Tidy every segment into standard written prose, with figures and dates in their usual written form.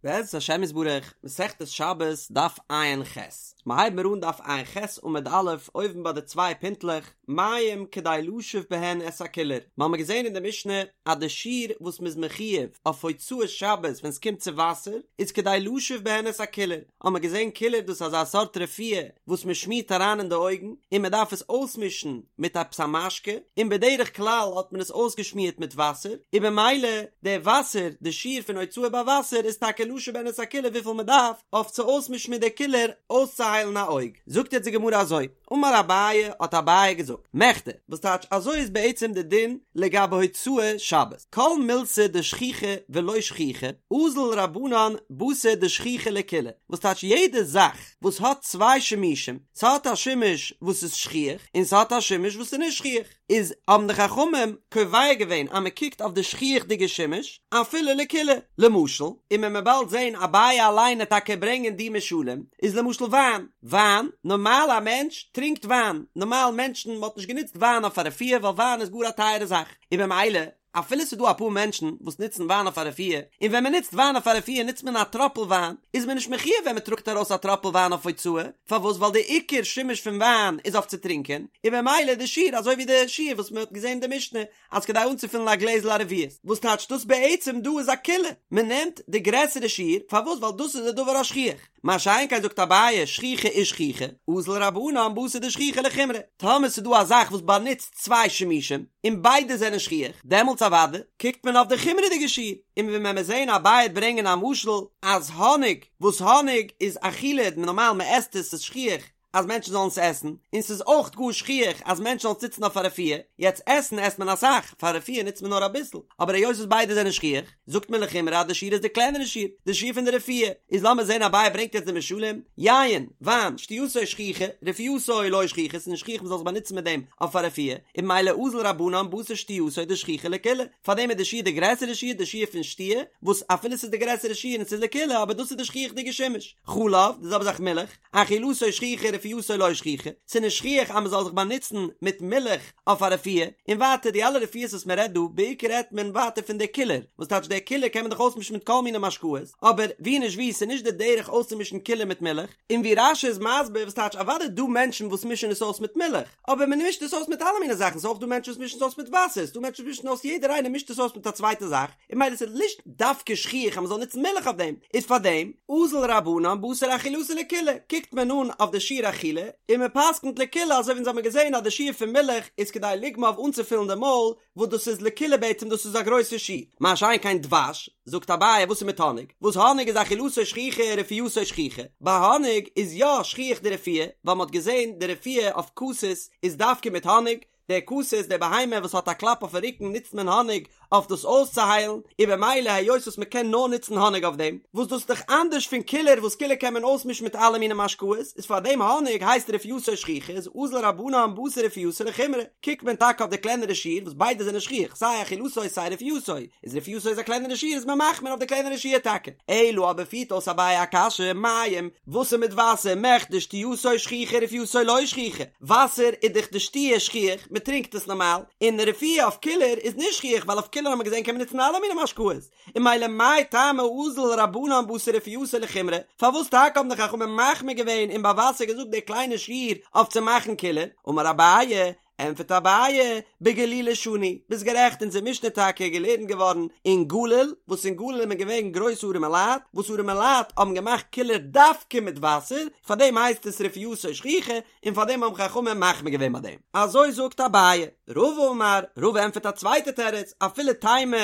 בעזרת השם יתברך, מסכת שבת, דף ע"ח. מ'הייב מיר אן דף ע"ח עמוד א', אויבן ביי די צוויי פינטלעך, מים כדי לשוף בהן את הקילור. מ'האמיר געזען אין די משנה אז די שיעור וואס מ'איז מחויב אויף הוצאת שבת ווען ס'קומט צו וואסער, איז כדי לשוף בהן את הקילור. האמיר געזען קילור דאס איז אזא סארט רפואה וואס מ'שמירט אריין אין די אויגן, און מ'דארף עס אויסמישן מיט עפעס א משקה, און בדרך כלל האט מען עס אויסגעשמירט מיט וואסער, און במילא די וואסער, די שיעור פון הוצאה ביי וואסער איז טאקע לשוף בהן את הקילור וויפיל מען דארף אויף צו אויסמישן מיט די קילור אויסצוהיילן א אויג. זאגט יעצט די גמרא אזוי, אמר אביי, האט אביי געזאגט, מכדי, וואס טייטש אזוי איז בעצם די דין לגבי הוצאה שבת, כל מילתא דשכיחא ולא שכיחא, אזל רבנן בתר דשכיחא לקולא, וואס טייטש יעדע זאך וואס האט צוויי שימושים, ס'האט א שימוש וואס איז שכיח און ס'האט א שימוש וואס איז נישט שכיח, איז האבן די חכמים קובע געווען אז מ'קוקט אויף די שכיח'דיגע שימוש אפילו לקולא, למשל, און ווען מ'וועט באלד זען אביי אליין עט טאקע ברענגען די משלים, איז למשל וויין, וויין, נארמאל א מענטש טרינקט וויין, נארמאל מענטשן, מ'האט נישט גענוצט וויין אויף א רפואה ווייל וויין איז גאר א טייערע זאך, און במילא אפילו ס'איז דא אפאר מענטשן וואס נוצן וויין אויף א רפואה, און ווען מ'נוצט וויין אויף א רפואה נוצט מען א טראפל וויין, איז מען נישט מחויב ווען מ'טראגט ארויס א טראפל וויין אויף הוצאה, פארוואס ווייל די עיקר שימוש פון וויין איז אויף צו טרינקען, און במילא די שיעור אזוי ווי די שיעור וואס מ'האט געזען אין די משנה אז כדי אנצופילן א גלעזל א רביעית, וואס טייטש דאס בעצם דא איז א קולא, מ'נעמט די גרעסערע שיעור, פארוואס ווייל דאס איז די דבר השכיח. מה שאין כן זאגט אביי שכיחא ושכיחא, אזל רבנן בתר דשכיחא לחומרא, טאמער ס'איז דא א זאך וואס באנוצט צוויי שימושים, און ביידע זענען שכיח, דעמאלטס אוודאי קוקט מען אויף די חומרה'דיגע שיעור, און ווי מען וועט זעהן אביי עט ברענגען א משל אז האניג, וואס האניג איז אכילה, נארמאל מען עסט עס, ס'איז שכיח, אז מענטשן זאלן עס עסן, און ס'איז אויך גאר שכיח אז מענטשן זאלן עס נוצן אויף א רפואה, יעצט עסן עסט מען אסאך, פאר רפואה נוצט מען נאר אביסל, אבער היות וואס ביידע זענען שכיח, זאגט מען לחומרא אז די שיעור איז די קלענערע שיעור, די שיעור פון די רפואה, איז לאמיר זען אביי ברענגט יעצט די משלים, יין, וויין, שתייתו שכיחא, רפואתו לא שכיחא, ס'איז נישט שכיח מ'זאל זיך באנוצן מיט דעם אויף א רפואה, און ממילא אזל רבנן בתר שתייתו דשכיחא לקולא, פארדעם איז די שיעור די גרעסערע שיעור, די שיעור פון שתיה, וואס אפילו ס'איז די גרעסערע שיעור און ס'איז לקולא אבער דאס איז די שכיח'דיגע שימוש. חלב, די זעלבע זאך מילך, אכילתו שכיחא רפואתו לא שכיחא, ס'איז נישט שכיח אז מ'זאל זיך באנוצן מיט מילך אויף א רפואה, און ווייטער די אלע רפואות וואס מ'רעדט דא, בעיקר רעדט מען ווייטער פון די קילור, וואס טייטש די קילור קען מען דאך אויסמישן מיט כל מיני משקאות, אבער ווי נישט ווי ס'איז נישט די דרך אויסצומישן קילור מיט מילך, און ווי רש"י איז מסביר וואס טייטש אוודאי דא מענטשן וואס מישן עס אויס מיט מילך, אבער מען מישט עס אויס מיט אלע מיני זאכן, ס'איז אויך דא מענטשן וואס מישן עס אויס מיט וואסער, ס'איז דא מענטשן וואס מישן אויס יעדער איינער מישט עס אויס מיט א צווייטע זאך, און ממילא ס'איז נישט דווקא שכיח אז מ'זאל נוצן מילך אויף דעם, איז פאר דעם, אזל רבנן בתר אכילתו לקולא, קוקט מען אן אויף די שיעור אכילה, און מען פסק'נט לקולא אזוי ווי אונז האמיר געזען אז די שיעור פון מילך איז כדי לוגמא אויף אנצופילן די מויל, וואס דאס איז לקולא בעצם דאס איז א גרויסע שיעור, מה שאין כן דבש, זאגט אביי וואס איז מיט האניג, וואס האניג איז אכילתו שכיחא רפואתו שכיחא, ביי האניג איז יא שכיח די רפואה, ווייל מ'האט געזען די רפואה אויף כתית איז דווקא מיט האניג, דער כתית, די בהמה וואס האט א קלאפ אויפן רוקן נוצט מען האניג אויף דאס אויסצוהיילן, און במילא היות וואס מען קען נאר נוצן האניג אויף דעם, וואס דאס איז דאך אנדערש פון קילור וואס קילור קען מען אויסמישן מיט אלע מיני משקאות, איז פאר דעם האניג הייסט רפואתו שכיחא איז אזל רבנן בתר רפואתו לחומרא, קוקט מען טאקע אויף די קלענערע שיעור וואס ביידע זענען שכיח סיי אכילתו סיי רפואתו, איז רפואתו איז א קלענערע שיעור איז מען מחמיר אויף די קלענערע שיעור טאקע. אלא אבער פירט אויס אביי א קשיא, מים, וואס איז מיט וואסער, מכדי שתייתו שכיחא רפואתו לא שכיחא, וואסער איז דאך די שתיה שכיח, מען טרינקט עס נארמאל, און רפואה אויף קילור איז נישט שכיח ווייל אויף קילור האט מען געזען קען מען נוצן אלע מיני משקאות, און ממילא מאי טעמא אזל רבנן בתר רפואתו לחומרא, פארוואס טאקע האבן די חכמים מחמיר געווען און ביי וואסער געזאגט די קליינע שיעור אויף צו מאכן קילור, אמר אביי, ענטפערט אביי, בגלילי שנו, ביסט גערעכט אונזער משנה טאקע געלערנט געווארן אין גליל, וואס אין גליל איז מען געווען גרויסע ארימע לייט, וואס ארימע לייט האבן געמאכט קילור דווקא מיט וואסער, פארדעם הייסט עס רפואתו שכיחא, און פארדעם האבן חכמים מחמיר געווען ביי דעם. אזוי זאגט אביי. רבא אמר, רבא ענטפערט א צווייטע תירוץ, אפילו תימא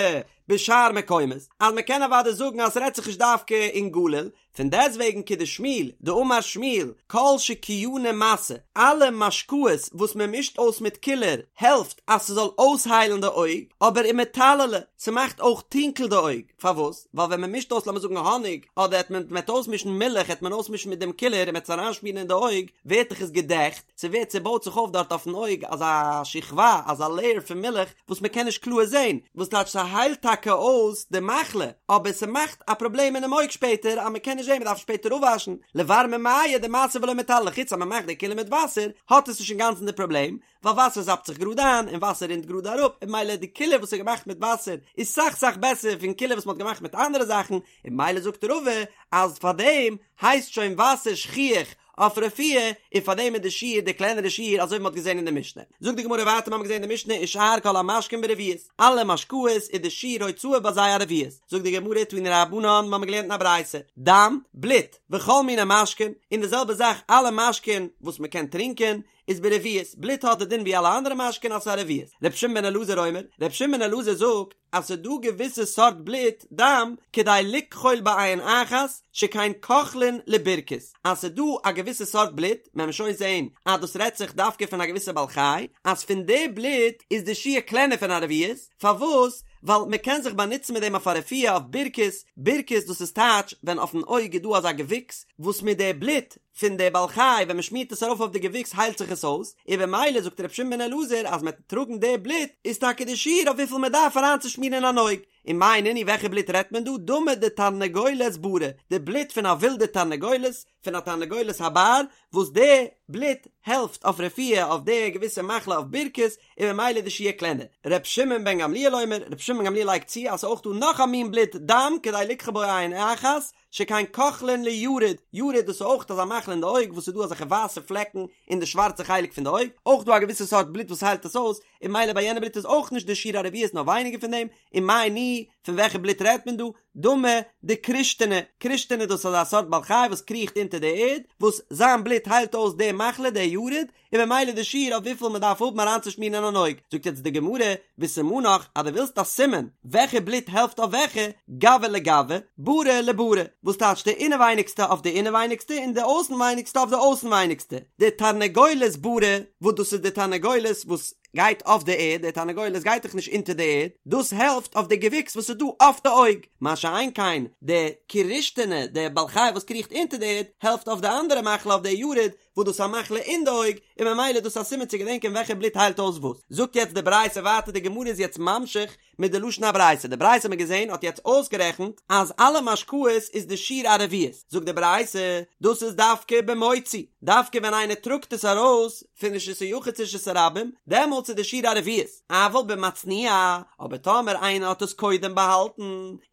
בשאר מקומות, אז מען קען אוודאי זאגן אז ס'רעדט זיך נישט דווקא אין גליל, פון דעסטוועגן כדשמואל, דאמר שמואל, כל שקיאני מסו, אלע משקאות וואס מען מישט אויס מיט קילור העלפט אז ס'זאל אויסהיילן די אויג, אבער ומטללי, ס'מאכט אויך טונקל די אויג, פארוואס? ווייל ווען מען מישט אויס לאמיר זאגן האניג, אדער העט מען מ'העט אויסמישן מילך העט מען אויסמישן מיט דעם קילור און מ'העט עס אריינשמירן אין די אויג, ווערט דאך עס געדעכט, ס'ווערט ס'בויט זיך אויף דארט אויפן אויג אזא שכבה, אזא לעיער פון מילך וואס מ'קען נישט קלאר זען, וואס טייטש ס'היילט טאקע. טאקע אויס די מחלה, אבער ס'מאכט א פראבלעם אינעם אויג שפעטער אז מ'קען נישט זען, מ'דארף שפעטער אפוואשן, לבר ממיא דמתו ולא מטללי, חוץ אז מ'מאכט די קילור מיט וואסער האט עס נישט אינגאנצן די פראבלעם, ווייל וואסער זאפט זיך גראד איין און וואסער רינט גראד אראפ, און ממילא די קילור וואס איז געמאכט מיט וואסער איז סאך סאך בעסער פון קילור וואס מ'האט געמאכט מיט אנדערע זאכן, און ממילא זאגט רבא אז פארדעם הייסט שוין וואסער שכיח אויף רפואה, און פארדעם איז די שיעור די קלענערע שיעור אזוי ווי מ'האט געזען אין די משנה. זאגט די גמרא ווייטער מ'האמיר געזען אין די משנה ושאר כל המשקין ברביעית, אלע משקאות איז די שיעור הוצאה ביי זיי א רביעית, זאגט די גמרא תנו רבנן מ'האמיר געלערנט אין א ברייתא, דם, בלוט, וכל מיני משקין, און די זעלבע זאך אלע משקין וואס מ'קען טרינקען, איז ברביעית, בלוט האט די דין ווי אלע אנדערע משקין אז ס'איז א רביעית. ר' שמעון בן אלעזר אומר, ר' שמעון בן אלעזר זאגט אז ס'איז דא געוויסע סארט בלוט, דם, כדי לכחול בעין אחת, שכן כוחלין לבירכות, אז ס'איז דא א געוויסע סארט בלוט, מען וועט שוין זעהן אז דאס רעדט זיך דווקא פון א געוויסע בעל חי, אז פון די בלוט איז די שיעור קלענער פון א רביעית, פארוואס? ווייל מען קען זיך באנוצן מיט דעם אויף א רפואה אויף בירכות, בירכות דאס איז טייטש ווען אויפן אויג איז דא אזא געוויקס וואס מיט די בלוט פון די בעל חי ווען מען שמירט עס ארויף אויף די געוויקס היילט זיך עס אויס, און במילא זאגט ר' שמעון בן אלעזר אז מען וועט טראגן די בלוט איז טאקע די שיעור אויף וויפיל מען דארף אריינצושמירן אין אן אויג, און מאי נינהו וועלכע בלוט רעדט מען דא, דמא דתרנגולת ברא, די בלוט פון א ווילדע תרנגולת, פון א תרנגולת הבר, וואס די בלוט העלפט אויף רפואה אויף די געוויסע מחלה אויף בירכות, און במילא די שיעור קלענער. ר' שמעון בן גמליאל אומר, ר' שמעון בן גמליאל לייגט צו אז ס'איז אויך דא נאך א מין בלוט דם כדי לכחול בו עין אחת, שכן כוחלין ליארוד, יארוד דאס איז אויך אזא מחלה אין די אויג וואס איז דא אזעלכע ווייסע פלעקן אין די שווארצע חלק פון די אויג, אויך דא א געוויסע סארט בלוט וואס היילט עס אויס, און ממילא ביי יענע בלוט איז אויך נישט די שיעור א רביעית נאר ווייניגער פון דעם, און מאי ניהו, פון וועלכע בלוט רעדט מען דא? דמא דכרושתינא, כרושתינא דאס איז אזא סארט בעל חי וואס קריכט אונטער די ערד, וואס זיין בלוט היילט אויס די מחלה די יארוד, און במילא די שיעור אויף וויפיל מען דארף האבן אריינצושמירן אין אן אויג, זאגט יעצט די גמרא, וסימנך אז דו ווילסט א סימן וועלכע בלוט העלפט אויף וועלכע, גוא לגוא, ברא לברא, וואס טייטש די אינעווייניגסטע אויף די אינעווייניגסטע און די אויסנווייניגסטע אויף די אויסנווייניגסטע, די תרנגולת ברא, וואס דאס איז די תרנגולת וואס גייט אויף די ערד, די תרנגולת גייט דאך נישט אונטער די ערד, דאס העלפט אויף די געוויקס וואס איז דא אויף די אויג, מה שאין כן די כרושתינא, די בעל חי וואס קריכט אונטער די ערד, העלפט אויף די אנדערע מחלה אויף די יארוד, וואס דאס איז א מחלה אין די אויג, און ממילא איז דאס א סימן צו געדענקען וועלכע בלוט היילט אויס וואס. זאגט יעצט די ברייתא ווייטער, די גמרא איז יעצט ממשיך מיט די לשון הברייתא, די ברייתא האט מען געזען האט יעצט אויסגערעכנט אז אלע משקאות איז די שיעור א רביעית, זאגט די ברייתא, דאס איז דווקא במוציא, דווקא ווען איינער טראגט עס ארויס פון רשות היחיד צו רשות הרבים, דעמאלטס איז די שיעור א רביעית. אבל במצניע, אבער טאמער איינער האט עס קודם באהאלטן,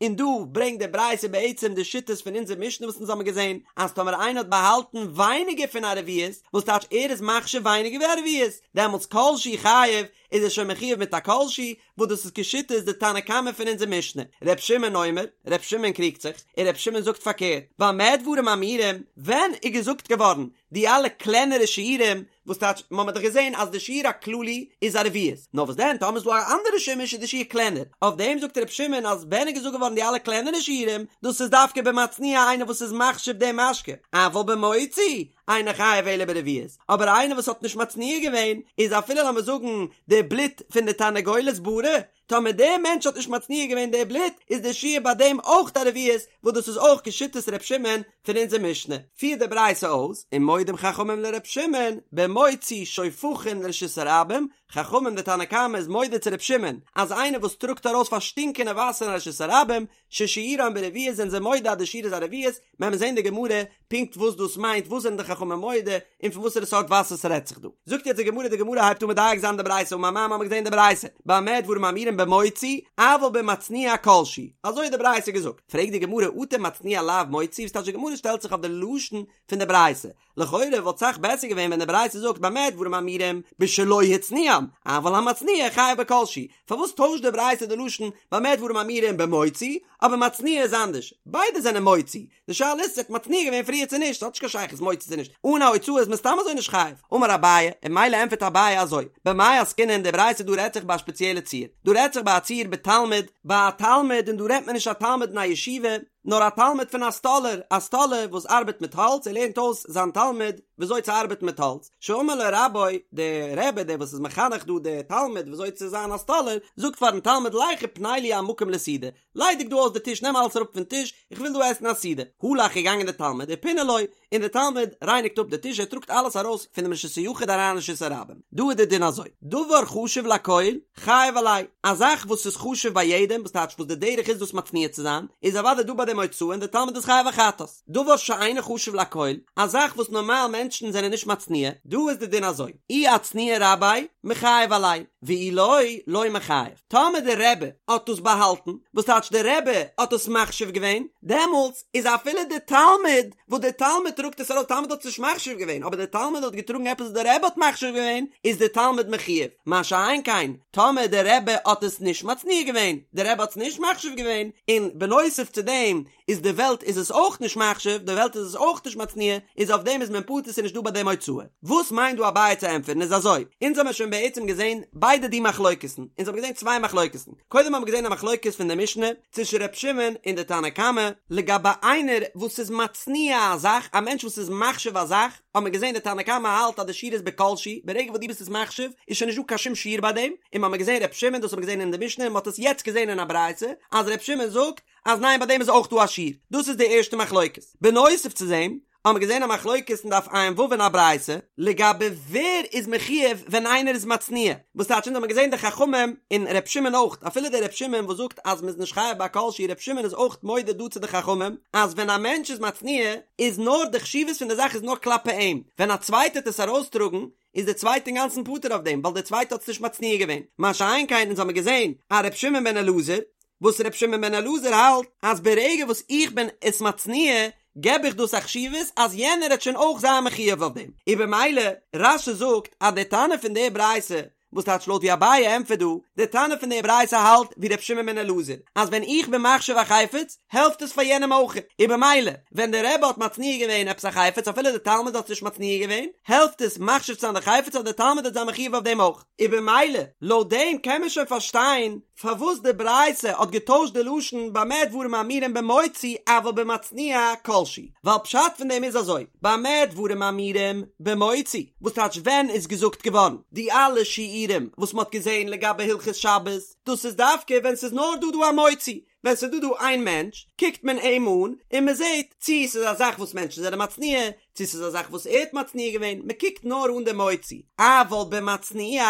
און דא ברענגט די ברייתא בעצם די שיטות פון אונזער משנה וואס אונז האבן געזען, אז טאמער איינער האט באהאלטן ווייניגער פון א רביעית, וואס טייטש ער איז מחשיב ווייניגער ווי א רביעית, דעמאלטס כל שהוא חייב, איז ער שוין מחויב מיט א כל שהוא, וואס דאס איז כשיטת די תנא קמא פון אונזער משנה. ר' שמעון אומר, ר' שמעון קריגט זיך, און ר' שמעון זאגט פארקערט, במה דברים אמורים, ווען איז געזאגט געווארן די אלע קלענערע שיעורים, וואס טייטש, מ'האמער דאך געזען אז די שיעור הכללי איז א רביעית, נאר וואס דען טאמער איז דא א אנדערע שימוש איז די שיעור קלענער, אויף דעם זאגט ר' שמעון אז ווען איז געזאגט געווארן די אלע קלענערע שיעורים, דאס איז דווקא במצניע איינער וואס איז מחשיב די משקה, אבל במוציא אינו חייב אלא ברביעית, אבער איינער וואס האט נישט מצניע געווען, איז אפילו לאמיר זאגן די בלוט פון די תרנגולת ברא, טאמער דער מענטש האט נישט מצניע געווען די בלוט, איז די שיעור ביי דעם אויך א רביעית, וואס דאס איז אויך כשיטת ר' שמעון פון אונזער משנה. פירט די ברייתא אויס, ומודים חכמים לר' שמעון, במוציא שופכין לרשות הרבים, חכמים די תנא קמא איז מודה צו ר' שמעון, אז איינער וואס טראגט ארויס פארשטינקענע וואסער אין רשות הרבים, ששיעורן ברביעית זענען זיי מודה אז די שיעור איז א רביעית, מען וועט זען די גמרא פונקט וואס דאס מיינט, וואס זענען די חכמים מודה, און פון וואסערע סארט וואסער ס'רעדט זיך דא. זאגט יעצט די גמרא, די גמרא הייבט אן מדייק זיין די ברייתא, אמר מר מ'האמיר געזען די ברייתא, במה דברים אמורים במוציא, אבל במצניע כל שהוא, אזוי האט די ברייתא געזאגט, פרעגט די גמרא אטו מצניע לאו מוציא, וואס טייטש די גמרא שטעלט זיך אויף די לשון פון די ברייתא, לכאורה וואלט סאך בעסער געווען ווען די ברייתא זאגט במה דברים אמורים בשלא הצניעם, אבל המצניע חייב בכל שהוא, פארוואס טוישט די ברייתא די לשון במה דברים אמורים במוציא, אבער מצניע איז אנדערש, ביידע זענען מוציא, די שאלה איז צו ער האט מצניע געווען פריער צו נישט, ס'האט נישט קיין שייכות מוציא צו נישט, אן א הוצאה איז מען סתם אזוי נישט חייב, אמר אביי, און ממילא ענטפערט אביי אזוי, במאי עסקינן די ברייתא דא רעדט זיך ביי א שפעציעלע ציור, דא רעדט זיך ביי א ציור בתלמיד, ביי א תלמיד און דא רעדט מען נישט א תלמיד אין א ישיבה, נאר א תלמיד פון א סטאלער, א סטאלער וואס ארבעט מיט האלץ, ער לערנט אויס זיין תלמיד וויאזוי צו ארבעטן מיט האלץ, שאמר לו רבו, דער רבי דער וואס איז מחנך דא דער תלמיד וויאזוי צו זיין א סטאלער, זאגט פארן תלמיד לך ופנה לי המקום לסעודה, ליידיג דא אויס די טיש נעם אלעס אראפ פון טיש, איך וויל דא עסן א סעודה. הלך איז געגאנגען דער תלמיד ופינה לו, און דער תלמיד רייניגט אפ די טיש ער טראגט אלעס ארויס פונעם רשות היחיד אריין אין רשות הרבים. דא איז דער דין אזוי, דבר חשוב לכל, חייב עליה, א זאך וואס איז חשוב ביי יעדעם, וואס טייטש וואס די דרך איז דאס מצניע צו זיין, איז אוודאי דא ביי דעם הוצאה און דער תלמיד איז חייב א חטאת. דבר שאינו חשוב לכל, א זאך וואס נארמאל מענטשן זענען נישט מצניע, דא איז די דין אזוי, אי אצניע רביה, מיחייב עליה, ואי לא, לא מיחייב. טאמער דער רבי האט דאס באהאלטן, וואס טייטש דער רבי האט עס מחשיב געווען, דעמאלטס איז אפילו דער תלמיד, וואס דער תלמיד טראגט עס ארויס, תלמיד האט עס נישט מחשיב געווען, אבער דער תלמיד האט געטראגן עפעס וואס דער רבי האט מחשיב געווען, איז דער תלמיד מחויב. מה שאין כן, טאמער דער רבי האט עס נישט מצניע געווען, דער רבי האט עס נישט מחשיב געווען, און בנוסף צו דעם איז די וועלט איז עס אויך נישט מחשיב, די וועלט איז עס אויך נישט מצניע, איז אויף דעם איז מען פטור ס'איז נישט דא ביי דעם הוצאה. וואס מיינט דא אביי צו ענטפערן איז אזוי, אונז האמיר שוין בעצם געזען ביידע די מחלוקת'ן, אונז האבן געזען צוויי מחלוקת'ן, קודם האבן מיר געזען א מחלוקת פון די משנה צווישן ר' שמעון און די תנא קמא, לגבי איינער וואס איז מצניע א זאך, א מענטש וואס איז מחשיב א זאך, האבן מיר געזען די תנא קמא האלט אז די שיעור איז בכל שהוא, ברגע וואס דו ביסט עס מחשיב איז שוין נישט דא קיין שום שיעור ביי דעם, און מ'האמיר געזען ר' שמעון, דאס האבן מיר געזען אין די משנה און מ'האט עס יעצט געזען אין א ברייתא, אז ר' שמעון זאגט אז ניין ביי דעם איז אויך דא א שיעור, דאס איז די ערשטע מחלוקת. בנוסף צו דעם האבן מיר געזען א מחלוקת אין דף ע"ו אין א ברייתא, לגבי ווער איז מחויב ווען איינער איז מצניע, וואס טייטש אונז האבן געזען די חכמים און ר' שמעון אויך, אפילו דער ר' שמעון וואס זאגט אז מ'איז נישט חייב ביי כל שהוא, ר' שמעון איז אויך מודה דא צו די חכמים אז ווען א מענטש איז מצניע איז נאר די חשיבות פון די זאך איז נאר כלפי אים, ווען א צווייטער טוט עס ארויסטראגן איז דער צווייטער אינגאנצן פטור אויף דעם ווייל דער צווייטער האט עס נישט מצניע געווען, מה שאין כן אונז האבן געזען א ר' שמעון בן אלעזר וואס ר' שמעון בן אלעזר האלט אז ברגע וואס איך בין עס מצניע געב איך דאס א חשיבות אז יענער העט שוין אויך זיין מחויב אויף דעם, און במילא רש"י זאגט אז די תנא פון די ברייתא וואס טייטש לויט ווי אביי ענטפערט דא, די תנא פון די ברייתא האלט ווי ר' שמעון בן אלעזר אז ווען איך בין מחשיב א חפץ העלפט עס פאר יענעם אויך, און במילא ווען די רבי האט מצניע געווען עפעס א חפץ אפילו די תלמיד האט עס נישט מצניע געווען העלפט עס מחשיב צו זיין די חפץ אז די תלמיד העט זיין מחויב אויף דעם אויך, און במילא לויט דעם קען מען שוין פארשטיין פארוואס די ברייתא האט געטוישט די לשון במה דברים אמורים במוציא אבל במצניע כל שהוא, ווייל פשט פון דעם איז אזוי, במה דברים אמורים במוציא, וואס טייטש ווען איז געזאגט געווארן די אלע שיעורים וואס מ'האט געזען לגבי הלכות שבת, דאס איז דווקא ווען ס'איז נאר דא דא א מוציא, ווען ס'איז דא דא איין מענטש קוקט מען אים אן און מ'זעט צי ס'איז א זאך וואס מענטשן זענען מצניע, צו ס'איז א זאך וואס ער האט מצניע געווען, מ'קוקט נאר אן די מוציא, אבל במצניע,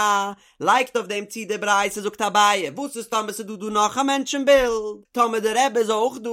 לייגט אויף דעם צו די ברייתא זאגט אביי, וואס איז טאמער ס'איז דא דא נאך א מענטש אין בילד, טאמער די רבי איז אויך דא,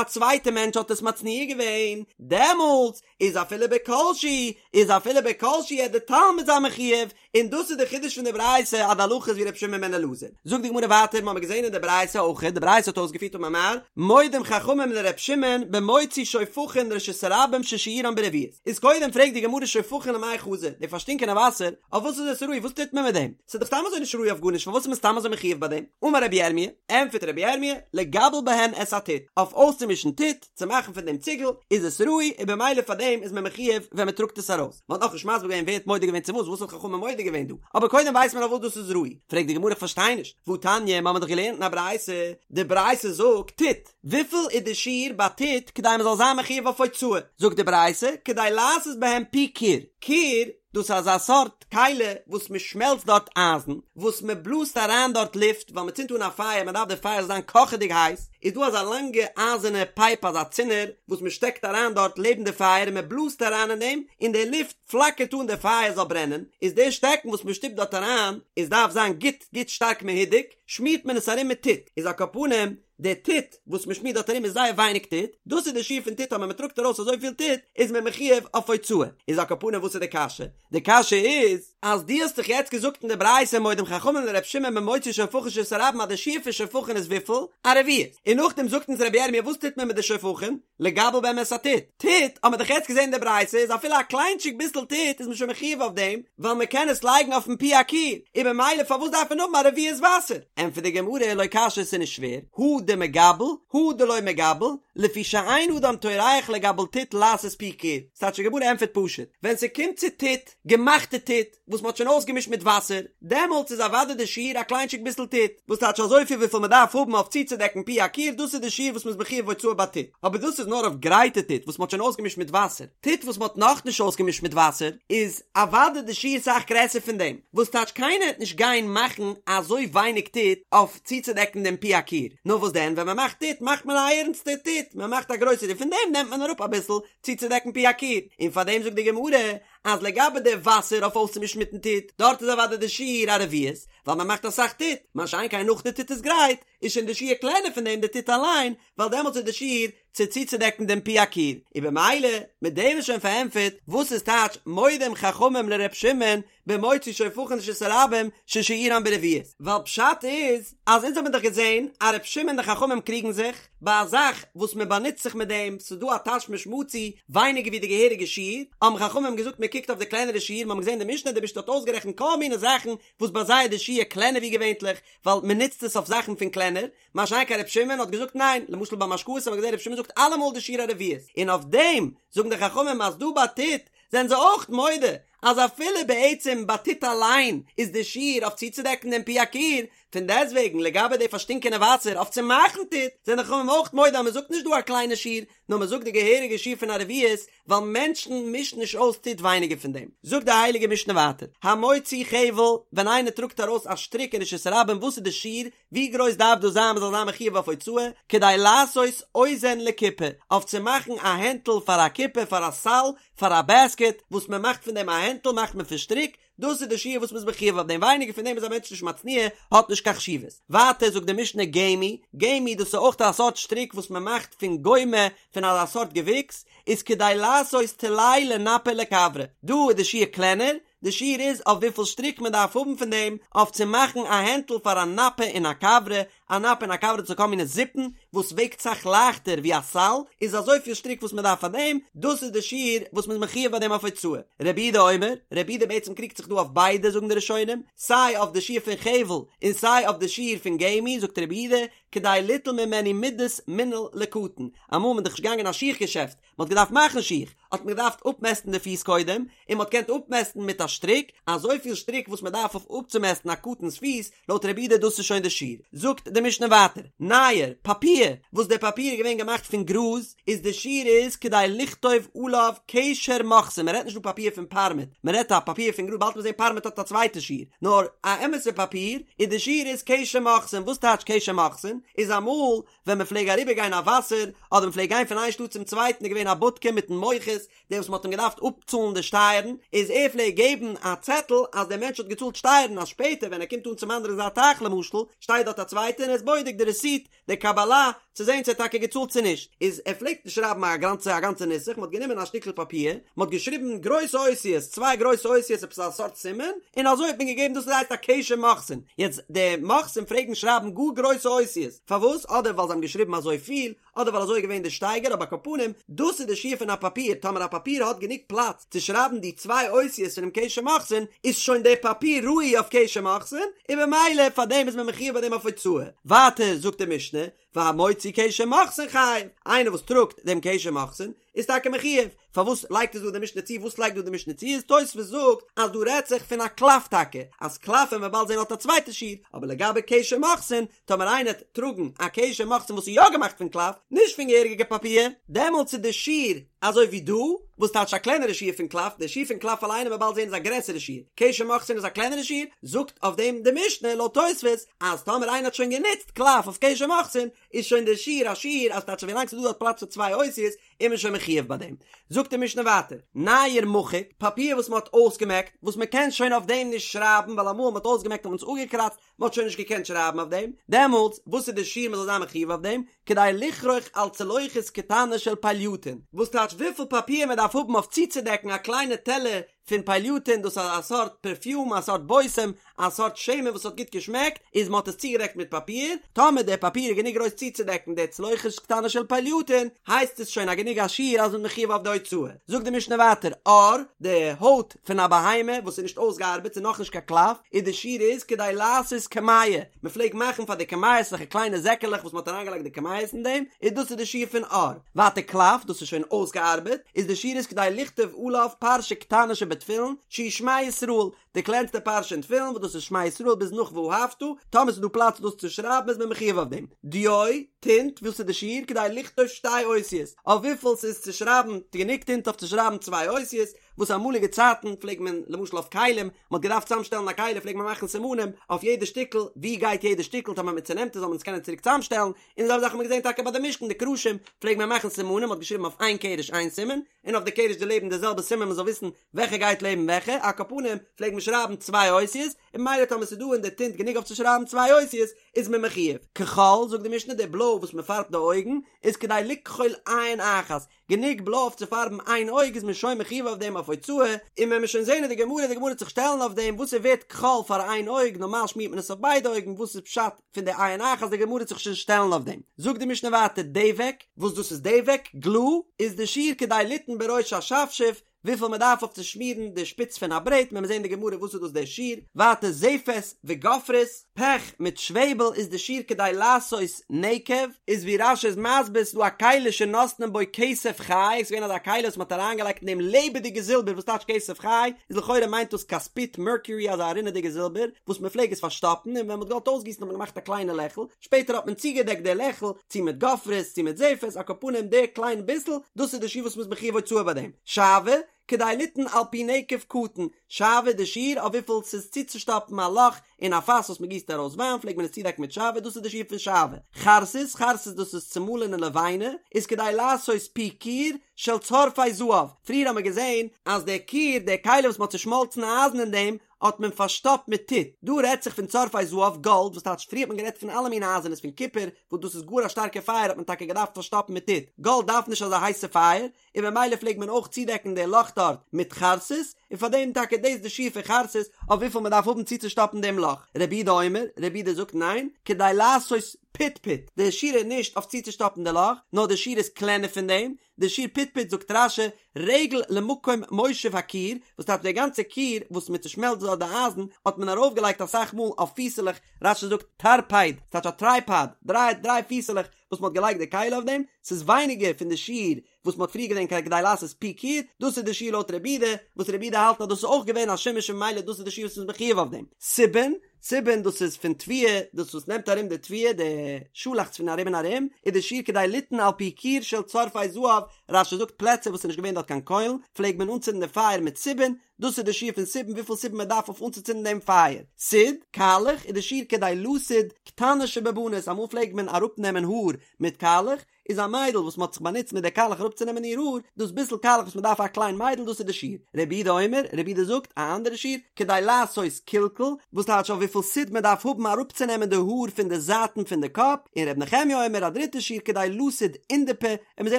א צווייטע מענטש האט עס מצניע געווען, דעמאלטס איז אפילו בכל שהוא, איז אפילו בכל שהוא העט די תלמיד זיין מחויב, און דאס איז די חידוש פון די ברייתא אז די הלכה איז ווי רבי שמעון בן אלעזר. זאגט די גמרא ווייטער, מ'האמיר געזען אין די ברייתא אויך, די ברייתא האט אויסגעפירט אמר מר, מודים חכמים לר' שמעון במוציא שופכין לרשות הרבים ששיעורן ברביעית. איז קודם פרעגט די גמרא שופכין למאי חזו, די פארשטינקענע וואסער, אויף וואס איז עס ראוי, וואס טוט מען מיט דעם? ס'איז דאך סתם אזוי נישט ראוי אויף גארנישט, פארוואס איז מען סתם אזוי מחויב ביי דעם? אמר רבי ירמי', ענטפערט רבי ירמי', לגבל בהן את הטיט, אויף אויסצומישן טיט, צו מאכן פון דעם ציגל, איז עס ראוי, און במילא פאר דעם איז מען מחויב ווען מען טראגט עס ארויס. מען האט נאכנישט מסביר געווען ווער האט מודה געווען צו וואס, וואס האט חכמים מודה געווען דא, אבער קודם ווייסט מען אויף וואס דאס איז ראוי. פרעגט די גמרא איך פארשטיי נישט, והתניא, מיר האבן דאך געלערנט אין א ברייתא, די ברייתא זאגט, טיט, וויפיל איז די שיעור ביי טיט כדי מען זאל זיין מחויב אויף הוצאה, זאגט די ברייתא, כדי לעשות בהם פי כור, כור, דאס איז אזא סארט כלי וואס מען שמעלצט דארט אייזן, וואס מען בלאזט אריין דארט לופט, ווייל מען צינדט אן א פייער, מען דארף די פייער זאל זיין קאכעדיג הייס, איז דא אזא לאנגע אייזערנע פייפ אזא צינור וואס מען שטעקט אריין דארט לעבן די פייער און מען בלאזט אריין אין דעם, און די לופט פלאקערט אן די פייער זאל ברענען, איז די שטעקן וואס מען שטופט דארט אריין, איז דארף זיין גוט גוט שטארק מהודק, שמירט מען עס ארום מיט טיט, איז על כל פנים, די טיט וואס מען שמירט דארט ארום איז זייער ווייניג טיט, דאס איז די שיעור פון טיט אז ווען מען טראגט ארויס אזויפיל טיט איז מען מחויב אויף הוצאה, איז על כל פנים וואס איז די קשיא? די קשיא איז אז דו האסט דאך יעצט געזאגט אין די ברייתא מודים חכמים לר' שמעון במוציא שופכין לרשות הרבים אז די שיעור פון שופכין איז וויפיל? א רביעית, און נאכדעם זאגט אונז רבי ירמי' וואס טוט מען מיט די שופכין? לגבל בהם את הטיט, טיט האט מען דאך יעצט געזען אין די ברייתא איז אפילו א קליינטשיג ביסל טיט איז מען שוין מחויב אויף דעם, ווייל מען קען עס לייגן אויפן פי הכור, און במילא פארוואס דארף מען האבן א רביעית וואסער? ענטפערט די גמרא לא קשיא ס'איז נישט שווער, הא דמגבל הא דלא מגבל, לפי שאין אדם טורח לגבל טיט לעשות פי כור, ס'טייטש די גמרא ענטפערט פשוט, ווען ס'קומט צו טיט, געמאכטע טיט, וואס מ'האט שוין אויסגעמישט מיט וואסער, דעמאלטס איז אוודאי די שיעור א קליינטשיג ביסל טיט, וואס טייטש אזויפיל וויפיל מ'דארף האבן אויף צוצודעקן פי הכיור, דאס איז די שיעור וואס מ'איז מחויב הוצאה ביי טיט, אבער דאס איז נאר אויף גרייטע טיט וואס מ'האט שוין אויסגעמישט מיט וואסער, טיט וואס מ'האט נאכנישט אויסגעמישט מיט וואסער, איז אוודאי די שיעור סאך גרעסער פון דעם, וואס טייטש קיינער וועט נישט גיין מאכן אזוי ווייניג טיט אויף צוצודעקן דעם פי הכיור, נאר וואס דען ווען מ'מאכט טיט מאכט מען א ערנסטע טיט, מ'מאכט א גרויסע טיט, פון דעם נעמט מען אראפ אביסל צוצודעקן פי הכיור, און פארדעם זאגט די גמרא אז לגבי די וואסער אויף אויסצומישן מיטן טיט, דארט איז אוודאי די שיעור א רביעית, ווייל מען מאכט אסאך טיט, מה שאין כן נאך די טיט איז גרייט, איז שוין די שיעור קלענער פון דעם די טיט אליין, ווייל דעמאלטס איז די שיעור צו צוצודעקן דעם פי הכיור, און במילא, מיט דעם איז שוין פארענטפערט וואס איז טייטש מודים חכמים לר' שמעון במוציא שופכין לרשות הרבים ששיעורן ברביעית, ווייל פשט איז אז אונז האבן דאך געזען אז ר' שמעון און די חכמים קריגן זיך ביי א זאך וואס מען באנוצט זיך מיט דעם, ס'איז דא א תשמיש מצוי ווייניגער ווי די געהעריגע שיעור, האבן חכמים געזאגט מען קוקט אויף די קלענערע שיעור, מיר האבן געזען די משנה, די משנה האט אויסגערעכנט כל מיני זאכן וואס ביי זיי איז די שיעור קלענער ווי געווענטליך, ווייל מען נוצט עס אויף זאכן פון קלענער, מה שאין כן ר' שמעון האט געזאגט ניין, למשל ביי משקאות האבן מיר געזען ר' שמעון זאגט אלעמאל די שיעור א רביעית, און אויף דעם זאגן די חכמים אז דא ביי טיט זענען זיי אויך מודה אז אפילו בעצם ביי טיט אליין איז די שיעור אויף צוצודעקן דעם פי הכיור, פון דעסטוועגן לגבי די פארשטינקענע וואסער אויף צו מאכן טיט, זענען די חכמים אויך מודה אז מען זאגט נישט דא א קליינע שיעור, נאר מען זאגט די געהעריגע שיעור פון א רביעית, ווייל מענטשן מישן נישט אויס טיט ווייניגער פון דעם. זאגט די הייליגע משנה ווייטער, המוציא חבל, ווען איינער טראגט ארויס א שטריק אין רשות הרבים וואס איז די שיעור, ווי גרויס דארף דאס זיין מען זאל זיין מחויב אויף הוצאה, כדי לעשות אוזן לקופה, אויף צו מאכן א הענטל פאר א קופה, פאר א סל, פאר א בעסקעט, וואס מען מאכט פון דעם א הענטל מאכט מען פון שטריק, דאס איז די שיעור וואס מען איז מחויב אויף דעם, ווייניגער פון דעם איז א מענטש נישט מצניע, האט נישט קיין חשיבות. ווייטער זאגט די משנה גמי, גמי דאס איז אויך א סארט שטריק וואס מען מאכט פון גומא, פון אזא סארט געוויקס, איז כדי לעשות טלאי לנפה ולכברה, דא איז די שיעור קלענער, די שיעור איז אויף וויפיל שטריק מען דארף האבן פון דעם אויף צו מאכן א הענטל פאר א נפה און א כברה, א נפה און א כברה דאס איז כל מיני זיפן וואס וועגט סאך לייכטער ווי א סל, איז אזויפיל שטריק וואס מען דארף פאר דעם, דאס איז די שיעור וואס מען איז מחויב ביי דעם אויף הוצאה. רבי יהודה אומר, רבי יהודה בעצם קריגט זיך דא אויף ביידע זאגן די ראשונים, סיי אויף די שיעור פון חבל און סיי אויף די שיעור פון גמי, זאגט רבי יהודה, כדי ליטול ממנו מידת מנעל לקטן, אמאל איז מען דאך נישט געגאנגען אין א שיך געשעפט, מען האט געדארפט מאכן שיך, האט מען געדארפט אפמעסטן די פיס קודם, און מען האט געקענט אפמעסטן מיט א שטריק, אזויפיל שטריק וואס מען דארף אויף אפצומעסטן א קטן'ס פיס, לויט רבי יהודה דאס איז שוין די שיעור. זאגט די משנה ווייטער, נייר, פאפיר, וואס דער פאפיר איז געווען געמאכט פון גראז, איז די שיעור איז כדי לכתוב עליו קשר מוכסין, מען רעדט נישט דא פאפיר פון פארמעט, מען רעדט א פאפיר פון גראז, באלד וועט מען זען פארמעט האט א צווייטע שיעור, נאר א אמת'ע פאפיר, איז די שיעור איז קשר מוכסין, וואס טייטש קשר מוכסין? איז אמאל ווען מען פלעג אריבער גיין א וואסער, אדער מען פלעג גיין פון איין שטאט צום צווייטן איז געווען א בודקע מיטן מוכס, דער וואס מען האט אים געדארפט אפצאלן די שטייערן, איז ער פלעג געבן א צעטל אז דער מענטש האט געצאלט שטייערן, אז שפעטער ווען ער קומט אן צום אנדערן זייט טייך למשל, שטייט דארט א צווייטער און ער איז בודק די רעסיט, די קבלה, צו זען צו ער האט טאקע געצאלט צו נישט, איז ער פלעגט נישט שרייבן א גאנצע א גאנצע נוסח, מען האט גענומען א שטיקל פאפיר, מען האט געשריבן גרויסע אותיות, צוויי גרויסע אותיות עפעס א סארט סימן, און אזוי האט מען געגעבן דאס הייסט א קשר מוכסין, יעצט די מוכסים פלעגן שרייבן גאר גרויסע אותיות, פארוואס? אדער ווייל זיי האבן געשריבן אזוי פיל, אדער ווייל אזוי איז געווען די שטייגער, אבער על כל פנים, דאס איז די שיעור פון א פאפיר, טאמער א פאפיר האט גענוג פלאץ צו שרייבן די צוויי אותיות פונעם קשר מוכסין, איז שוין דער פאפיר ראוי אויף קשר מוכסין, און במילא פאר דעם איז מען מחויב ביי דעם אויף הוצאה. ווייטער זאגט די משנה, והמוציא קשר מוכסין חייב, איינער וואס טראגט דעם קשר מוכסין איז טאקע מחויב, פארוואס לייגט עס דא די משנה צו, וואס לייגט דא די משנה צו, איז תוספות זאגט אז דא רעדט זיך פון א קלף טאקע, אז קלף וועט מען באלד זען האט א צווייטע שיעור, אבער לגבי קשר מוכסין, טאמער איינער וועט טראגן א קשר מוכסין וואס איז יא געמאכט פון קלף, נישט פון געהעריגע פאפיר, דעמאלטס איז די שיעור אזוי ווי דא, וואס טייטש א קלענערע שיעור פון קלף, די שיעור פון קלף אליין וועט מען באלד זען איז א גרעסערע שיעור, קשר מוכסין איז א קלענערע שיעור, זאגט אויף דעם די משנה לויט תוספות אז טאמער איינער האט שוין גענוצט קלף אויף קשר מוכסין איז שוין די שיעור א שיעור אז טייטש ווילאנג ס'איז דא דארט פלאץ פאר צוויי אותיות איז מען שוין מחויב ביי דעם. זאגט די משנה ווייטער, נייר מחוק, פאפיר וואס מען האט אויסגעמעקט, וואס מען קען שוין אויף דעם נישט שרייבן ווייל אמאל מען האט אויסגעמעקט האט מען עס אפגעקראצט, מען האט שוין נישט געקענט שרייבן אויף דעם, דעמאלטס וואס איז די שיעור מען זאל זיין מחויב אויף דעם, כדי לכרוך על צלוחית קטנה של פלייטון, וואס טייטש וויפיל פאפיר מען דארף האבן אויף צוצודעקן א קליינע טעלער פון פלייטון, דאס איז א סארט פערפיום, א סארט בושם, א סארט שמן וואס האט גוט געשמעקט, איז מען האט עס צוגעדעקט מיט פאפיר, טאמער דער פאפיר איז גענוג גרויס צוצודעקן די צלוחית קטנה של פלייטון, הייסט עס שוין א גענוג א שיעור אז מען איז מחויב אויף די הוצאה. זאגט די משנה ווייטער, עור, די הויט פון א בהמה וואס איז נישט אויסגעארבעט, ס'איז נאכנישט קיין קלף, איז די שיעור איז כדי לעשות קמיע, מען פלעגט מאכן פאר די קמיות אזעלכע קליינע זעקעלעך וואס מען האט אריינגעלייגט די קמיות אין דעם, איז דאס איז די שיעור פון עור. ווייטער קלף, דאס איז שוין אויסגעארבעט, איז די שיעור איז כדי לכתוב עליו פרשה קטנה שבתפילין, שהיא שמע ישראל, די קלענסטע פרשה אין תפילין וואס דאס איז שמע ישראל ביז נאך ואהבת, טאמער ס'איז דא פלאץ דאס צו שרייבן איז מען מחויב אויף דעם. דיו, טינט, וואס איז די שיעור כדי לכתוב שתי אותיות, אויף וויפיל ס'איז צו שרייבן, גענוג טינט אויף צו שרייבן צוויי אותיות, וואס אמאליגע צייטן פלעגט מען למשל אויף כלים, מ'האט געדארפט צוזאמשטעלן א כלי פלעגט מען מאכן סימנים אויף יעדע שטיקל ווי גייט יעדע שטיקל טאמער מ'צונעמט עס זאל מען עס קענען צוריק צוזאמשטעלן, און די זעלבע זאך האט מען געזען טאקע ביי די משכן די קרשים פלעגט מען מאכן סימנים מ'האט געשריבן אויף איין קרש איין סימן, און אויף די קרש דערלעבן די זעלבע סימן מ'זאל וויסן וועלכע גייט לעבן וועלכע, על כל פנים פלעגט מען שרייבן צוויי אותיות, און ממילא טאמער ס'איז דא אין די טינט גענוג אויף צו שרייבן צוויי אותיות איז מען מחויב. כחול, זאגט די משנה, די בלוי וואס מען פארבט די אויגן איז כדי לכחול עין אחת, גענוג בלוי אויף צו פארבן איין אויג איז מען שוין מחויב אויף דעם אויף הוצאה, און ווען מיר שוין זעהן אין די גמרא, די גמרא וועט זיך שטעלן אויף דעם וואס איז ווערט כחול פאר איין אויג, נארמאל שמירט מען עס אויף ביידע אויגן, וואס איז פשט פון די עין אחת, די גמרא וועט זיך שוין שטעלן אויף דעם. זאגט די משנה ווייטער דבק, וואס דאס איז דבק, גלו, איז די שיעור כדי ליתן בראש השפשוף, וויפיל מען דארף אויף צו שמירן די שפיץ פון א ברעט, מען וועט זען אין די גמרא וואס איז דאס דער שיעור, ווייטער זפת וגופרית, פעך מיט שוועבל איז די שיעור כדי לעשות נקב, איז ווי רש"י איז מסביר ס'איז דא א כלי שנותנין בו כסף חי, ס'איז געווען אזא כלי וואס מ'האט אריינגעלייגט אין דעם לעבעדיגע זילבער וואס טייטש כסף חי, איז לכאורה מיינט דאס כספית מערקיורי אזא רינעדיגע זילבער וואס מ'פלעג עס פארשטאפן און ווען מ'האט געוואלט אויסגיסן האט מען געמאכט א קליינע לעכל, שפעטער האט מען צוגעדעקט די לעכל צו מיט גופרית צו מיט זפת, על כל פנים די קליין ביסל, דאס איז די שיעור וואס מ'איז מחויב הוצאה ביי דעם. שעוה, כדי ליתן על פי נקב קטן, שעוה די שיעור אויף וויפיל ס'איז צוצושטאפן א לאך אין א פאס וואס מ'גיסט ארויס וויין פלעגט מען עס צודעקן מיט שעוה, דאס איז די שיעור פון שעוה. חרסית, חרסית דאס איז צומאלענע לבנה, איז כדי לעשות פי כור של צורפי זהב, פריער האט מען געזען אז די כור, די כלי וואס מ'האט צושמאלצן אייזן אין דעם, האט מען פארשטאפט מיט טיט, דא רעדט זיך פון צורפי זהב, גאלד, וואס טייטש פריער האט מען גערעדט פון אלע מיני אייזענעס פון קופער, וואס דאס איז גאר א שטארקע פייער האט מען טאקע געדארפט פארשטאפן מיט טיט, גאלד דארף נישט אזא הייסע פייער, און במילא פלעגט מען אויך צודעקן די לאך דארט מיט חרסית, און פאר דעם טאקע דאס די שיעור פון חרסית אויף וויפיל מען דארף האבן צוצושטאפן דעם לאך, רבי יהודה אומר, רבי יהודה זאגט ניין, כדי לעשות פטפוט, די שיעור איז נישט אויף צוצושטאפן די לאך, נאר די שיעור איז קלענער פון דעם, די שיעור פטפוט זאגט רש"י, רגל למקום מושב הכור, וואס טייטש די גאנצע כור וואס מען צושמעלצט דארט די אייזן, האט מען ארויפגעלייגט אסאך מאל אויף פיסעלעך, רש"י זאגט טרפייד, ס'טייטש א טרייפאד, דריי דריי פיסעלעך וואס מען האט געלייגט די כלי אויף דעם, ס'איז ווייניגער פון די שיעור וואס מען האט פריער געזען כדי לעשות פי כור, דאס איז די שיעור לויט רבי יהודה, וואס רבי יהודה האלט אז דאס איז אויך געווען א שימוש און ממילא דאס איז די שיעור וואס מ'איז מחויב אויף דעם. סובין, סובין דאס איז פון תבואה, דאס וואס נעמט ארום די תבואה, די שאלאכץ פון ארום און ארום, איז די שיעור כדי ליתן על פי כור של צורפי זהב, רש"י זאגט פלעצער וואס איז נישט געווען דארט קיין קוילן, פלעגט מען אנצינדן די פייער מיט סובין, דאס איז די שיעור פון סובין וויפיל סובין מען דארף אויף אנצוצינדן דעם פייער. סיד, קאלעך, איז די שיעור כדי לסוד קטנה שבבנות, אמאל פלעגט מען אראפנעמען האר מיט קאלעך, איז א מיידל וואס מ'האט זיך באנוצט מיט די קאלעך אראפצונעמען איר האר, דאס ביסל קאלעך וואס מ'דארף א קליין מיידל דאס איז די שיעור. רבי יהודה אומר, רבי יהודה זאגט א אנדערע שיעור, כדי לעשות כלכול, וואס טייטש אויף וויפיל סיד מען דארף האבן אראפצונעמען די האר פון די זייטן פון די קאפ, און רבי נחמיה אומר א דריטע שיעור כדי לסוד אונדפי, און מיר זעען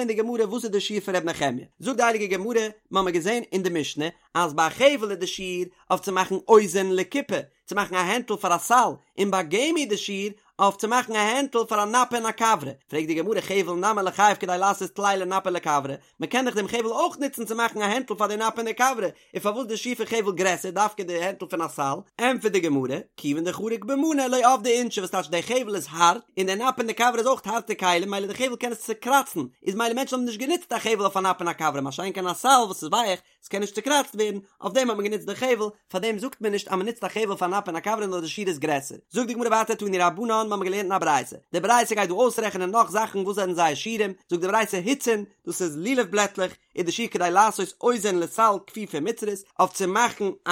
אין די גמרא וואס איז די שיעור פון רבי נחמיה. זאגט די הייליגע גמרא, מ'האמיר געזען אין די משנה אז ביי חבל איז די שיעור אויף צו מאכן אוזן לקופה, צו מאכן א הענטל פאר א סל, און ביי גמי די שיעור אויף צו מאכן א הענטל פאר א נפה און א כברה, פרעגט די גמרא חבל נמי ליחייב כדי לעשות טלאי לנפה ולכברה, מען קען דאך דעם חבל אויך נוצן צו מאכן א הענטל פאר די נפה און די כברה, און פארוואס די שיעור פון חבל גרעסער דווקא די הענטל פון א סל? ענטפערט די גמרא, כיוון דחריק במנא לא עבדי אינשי וואס טייטש די חבל איז הארט, און די נפה און די כברה איז אויך הארטע כלים מילא די חבל קען עס צוקראצן, איז מילא מענטשן האבן נישט גענוצט א חבל אויף א נפה און א כברה מה שאין כן א סל וואס איז ווייך, ס'קען נישט צוקראצט ווערן, אויף דעם האט מען גענוצט די חבל, פאר דעם זאגט מען נישט אז מען נוצט א חבל פאר נפה און א כברה נאר די שיעור איז גרעסער. זאגט די גמרא ווייטער תנו רבנן, מ'האמיר געלערנט אין א ברייתא, די ברייתא גייט דא אויסרעכענען נאך זאכן וואס זענען זייער שיעורים, זאגט די ברייתא הוצין, דאס איז לולב בלעטלעך, איז די שיעור כדי לעשות אוזן לסל כפופה מצרית, אויף צו מאכן א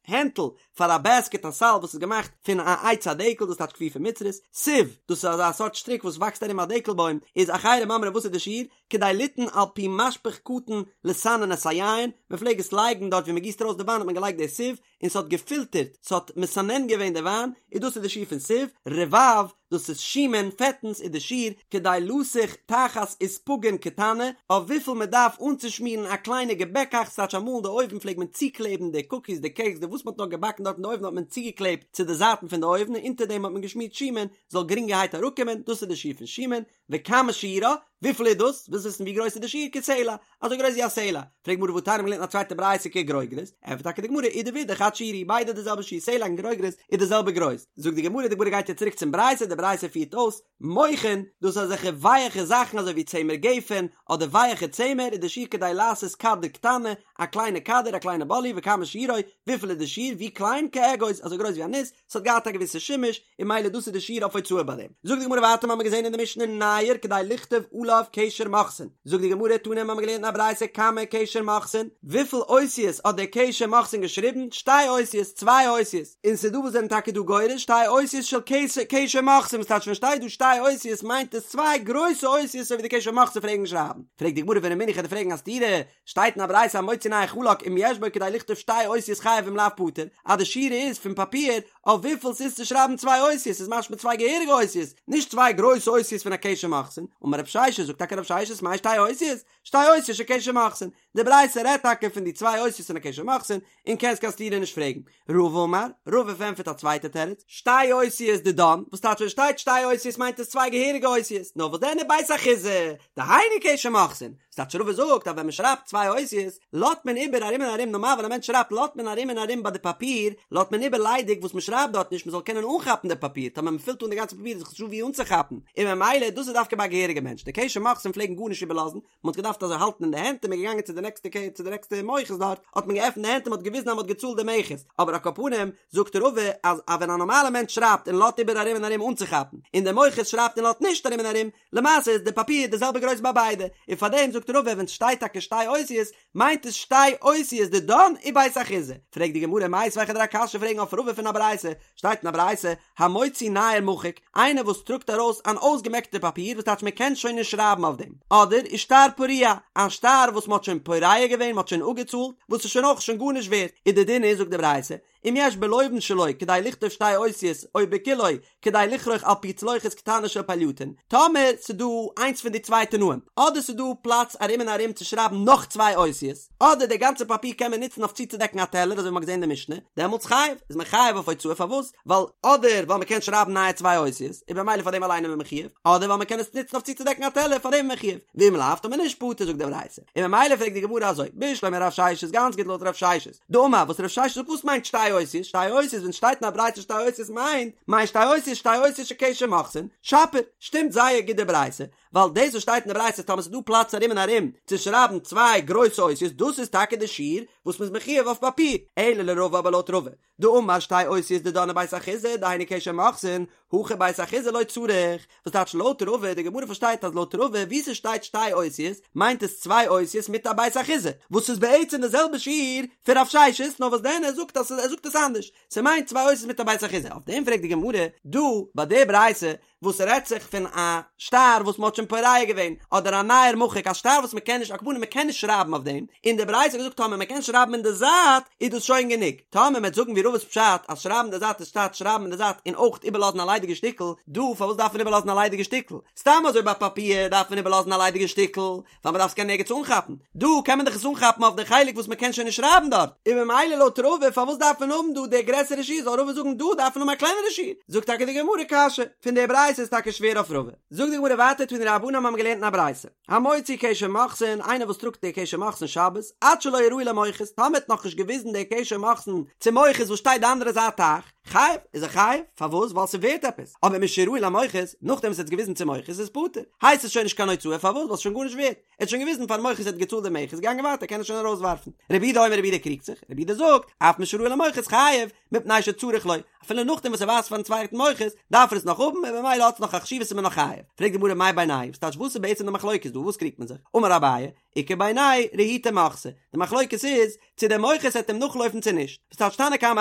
הענטל פאר א בעסקעט א סל וואס איז געמאכט פון א עץ הדקל דאס טייטש כפופה מצרית, סיב, דאס איז אזא סארט שטריק וואס וואקסט ארום א דקל בוים, איז אחרים אומרים וואס איז די שיעור? כדי ליתן על פי משפך קטן לסנן את היין, מען פלעג עס לייגן דארט ווי מען גיסט ארויס די וויין האט מען געלייגט די סיב און ס'האט געפילטערט, ס'האט מסנן געווען די וויין, און דאס איז די שיעור פון סיב, רבב, דאס איז שומן, פעטנס איז די שיעור, כדי לסוך תחת אספגין קטנה, אויף וויפיל מען דארף אנצושמירן א קליינע געבעקאכץ, ס'טייטש אמאל אין די אויוון פלעגט מען צוקלעבן די קוקיס די קעיקס די וואס מען האט נאר געבאקן דארט אין די אויוון האט מען צוגעקלעבט צו די זייטן פון די אויוון און אונטער דעם האט מען געשמירט שומן זאל גרינגערהייט אראפקומען, דאס איז די שיעור פון שומן, וכמה שיעורה, וויפיל איז דאס? ווילסט וויסן ווי גרויס איז די שיעור? כסלע, אזוי גרויס ווי א סלע. פרעגט גמרא והתניא מ'האט געלערנט א צווייטע ברייתא כגרוגרת, ענטפערט טאקע די גמרא אידי ואידי חד שיעורא, ביידע די זעלבע שיעור, סלע און גרוגרת איז די זעלבע גרויס. זאגט די גמרא, די גמרא גייט יעצט צוריק צום ברייתא, די ברייתא פירט אויס, מוכין, דאס איז אזעלכע ווייעכע זאכן אזוי ווי צמר גפן, אדער ווייעכע צמר, איז די שיעור כדי לעשות כדור קטנה, א קליינע כדור, א קליינע באלי, וכמה שיעורו, וויפיל איז די שיעור, ווי קליין, כאגוז, אזוי גרויס ווי א ניס, ס'האט געהאט א געוויסע שימוש, און ממילא דאס איז די שיעור אויף הוצאה ביי דעם. זאגט די גמרא ווייטער מ'האמיר געזען אין די משנה נייר כדי לכתוב עליו קשר מוכסין, זאגט די גמרא תנא מ'האמיר געלערנט אין א ברייתא כמה קשר מוכסין, וויפיל אותיות האט דער קשר מוכסין געשריבן, שתי אותיות, צוויי אותיות, און ס'איז דא וואס זענען טאקע דא גורס שתי אותיות של קשר מוכסין, וואס טייטש ווען שטייט דא שתי אותיות מיינט עס צוויי גרויסע אותיות אזוי ווי די קשר מוכסין פלעגן שרייבן, פרעגט די גמרא ורמינהו כ'וועל דיר פרעגן א סתירה, שטייט אין א ברייתא המוציא נייר חלק אם יש בו כדי לכתוב שתי אותיות חייב אם לאו פטור, אז די שיעור איז פון פאפיר אויף וויפיל ס'איז צו שרייבן צוויי אותיות איז משמע צוויי געהעריגע אותיות, נישט צוויי גרויסע אותיות פון א קשר מוכסין, אמר רב ששת זאגט טאקע רב ששת מאי שתי אותיות? שתי אותיות של קשר מוכסין, די ברייתא רעדט טאקע פון די צוויי אותיות פון א קשר מוכסין, און קענסט קיין סתירה נישט פרעגן. רבא אמר, רבא פארענטפערט א צווייטע תירוץ, שתי אותיות דידן, וואס טייטש ווען שטייט שתי אותיות מיינט עס צוויי געהעריגע אותיות, נאר וואס דען ובית אחיזה, דהיינו קשר מוכסין, וואס טייטש רבא זאגט אז ווען מען שרייבט צוויי אותיות, לאזט מען איבער ארום און ארום, נארמאל ווען א מענטש שרייבט לאזט מען ארום און ארום ביי די פאפיר, לאזט מען איבער ליידיג וואס מען שרייבט דארט נישט מען זאל קענען אנכאפן די פאפיר, טאמער מען פילט אן די גאנצע פאפיר איז דאך נישטא ווי אנצוכאפן, און ממילא דאס איז דווקא ביי א געהעריגע מענטש, די קשר מוכסין פלעגן גארנישט איבערלאזן, מען האט געדארפט אזוי האלטן אין די הענט און מען איז געגאנגען צו די נעקסטע קעי צו די נעקסטע מוכס דארט האט מען געעפנט די הענט און מען האט געוויזן אז מען האט געצאלט די מכס, אבער על כל פנים זאגט רבא אז אז ווען א נארמאלע מענטש שרייבט און לאזט איבער ארום און ארום אנצוכאפן, און דער מוכס שרייבט און לאזט נישט ארום און ארום, למעשה איז די פאפיר די זעלבע גרויס ביי ביידע, און פארדעם זאגט רבא ווען סשטייט טאקע שתי אותיות מיינט עס שתי אותיות דידן ובית אחיזה, פרעגט די גמרא מיתיבי כ'וועל דיר א קשיא פרעגן אויף רבא פון א ברייתא, שטייט אין א ברייתא, המוציא נייר מחוק, איינער וואס טראגט ארויס אן אויסגעמעקטע פאפיר וואס טייטש מען קען שוין נישט שרייבן אויף דעם, אדער ושטר פרוע, א שטר וואס מען האט שוין פורע געווען, מען האט שוין אפגעצאלט, וואס איז שוין אויך שוין גארנישט ווערט, איז די דין איז זאגט די ברייתא, אם יש בלובן שלו כדי לכתוב שתי אותיות או בכולו כדי לכרוך על פי צלוחית קטנה של פלייטון, טאמער ס'דא איינס פון די צוויי תנאים, אדער ס'דא פלאץ ארום און ארום צו שרייבן נאך צוויי אותיות, אדער די גאנצע פאפיר קען מען נוצן אויף צוצודעקן א טעלער אזוי ווי מ'האט געזען אין די משנה, דעמאלטס חייב, איז מען חייב אויף הוצאה פארוואס? ווייל אדער ווייל מ'קען שרייבן נייע צוויי אותיות, און במילא פאר דעם אליין איז מען מחויב, אדער ווייל מ'קען עס נוצן אויף צוצודעקן א טעלער פאר דעם איז מען מחויב, ואם לאו טאמער נישט פטור זאגט די ברייתא, און ממילא פרעגט די גמרא אזוי, בשלמא רב ששת גאנץ גוט לויט רב ששת, דאמר וואס רב ששת זאגט וואס מיינט שתי אותיות, שתי אותיות ווען שטייט אין א ברייתא שתי אותיות מיינט מיינט שתי אותיות שתי אותיות של קשר מוכסין, שפיר, שטימט זייער גוט די ברייתא, ווייל דאס וואס שטייט אין די ברייתא טאמער ס'איז דא פלאץ ארום און ארום צו שרייבן צוויי גרויסע אותיות דאס איז טאקע די שיעור וואס מ'איז מחויב אויף פאפיר, אלא לרבא אבער לויט רבא דאמר שתי אותיות דידן ובית אחיזה דהיינו קשר מוכסין, הכא בית אחיזה לא צריך, וואס טייטש לויט רבא, די גמרא פארשטייט אז לויט רבא וואו ס'שטייט שתי אותיות מיינט עס צוויי אותיות מיט א בית אחיזה, וואס איז בעצם די זעלבע שיעור פון רב ששת נאר וואס דען ער זאגט אז ער זאגט עס אנדערש, ס'מיינט צוויי אותיות מיט א בית אחיזה, אויף דעם פרעגט די גמרא דא ביי די ברייתא וואס רעדט זיך פון א שטר וואס מ'האט שוין פורע געווען, אדער א נייר מחוק, א שטר וואס מ'קען נישט, על כל פנים מ'קען נישט שרייבן אויף דעם, און די ברייתא האט געזאגט טאמער מ'קען שרייבן אין די זייט איז דאס שוין גענוג, טאמער מ'עט זאגן ווי רבא'ס פשט אז שרייבן אין די זייט איז טייטש שרייבן אין די זייט און אויך איבערלאזן א ליידיגע שטיקל, דא פארוואס דארף מען איבערלאזן א ליידיגע שטיקל? סתם אזוי ביי פאפיר דארף מען איבערלאזן א ליידיגע שטיקל, ווייל מ'דארף עס קענען ערגעץ אנכאפן, דא קען מען דאך עס אנכאפן אויף די חלק וואס מ'קען שוין נישט שרייבן דארט, און ממילא לויט רבא פארוואס דארף מען האבן דא די גרעסערע שיעור, זאל רבא זאגן דא דארף מען האבן א קלענערע שיעור, זאגט טאקע די גמרא קשיא, פון די ברייתא איז טאקע שווער אויף רבא, זאגט די גמרא ווייטער תנו רבנן האבן געלערנט אין א ברייתא, המוציא קשר מוכסין, איינער וואס טראגט די קשר מוכסין שבת, עד שלא הראהו למוכס, טאמער האט נאכנישט געוויזן די קשר מוכסין צום מוכס וואס שטייט די אנדערע זייט טייך, חייב, איז ער חייב, פארוואס? ווייל ס'ווערט עפעס, אבער משהראהו למוכס, נאכדעם וואס ער האט עס געוויזן צום מוכס איז פטור, הייסט עס שוין נישט קיין הוצאה, פארוואס? ווייל ס'איז שוין גארנישט ווערט, ער האט שוין געוויזן פארן מוכס ער האט געצאלט די מכס, געגאנגען ווייטער קען ער שוין ארויסווארפן. רבי יהודה אומר רבי יהודה קריגט זיך, רבי יהודה זאגט, אף משהראהו למוכס חייב, מפני שצריך לו, אפילו נאכדעם וואס ער ווייזט פארן צווייטן מוכס, דארף ער עס נאך האבן, און ממילא האט עס נאך א חשיבות איז מען נאך חייב. פרעגט די גמרא מאי בינייהו, וואס טייטש וואס איז בעצם די מחלוקת דא, וואס קריגט מען זיך? אמר אביי, איכא בינייהו רהוטי מוכסא, די מחלוקת איז צו דער מוכס העט אים נאכלויפן צו נישט, וואס טייטש תנא קמא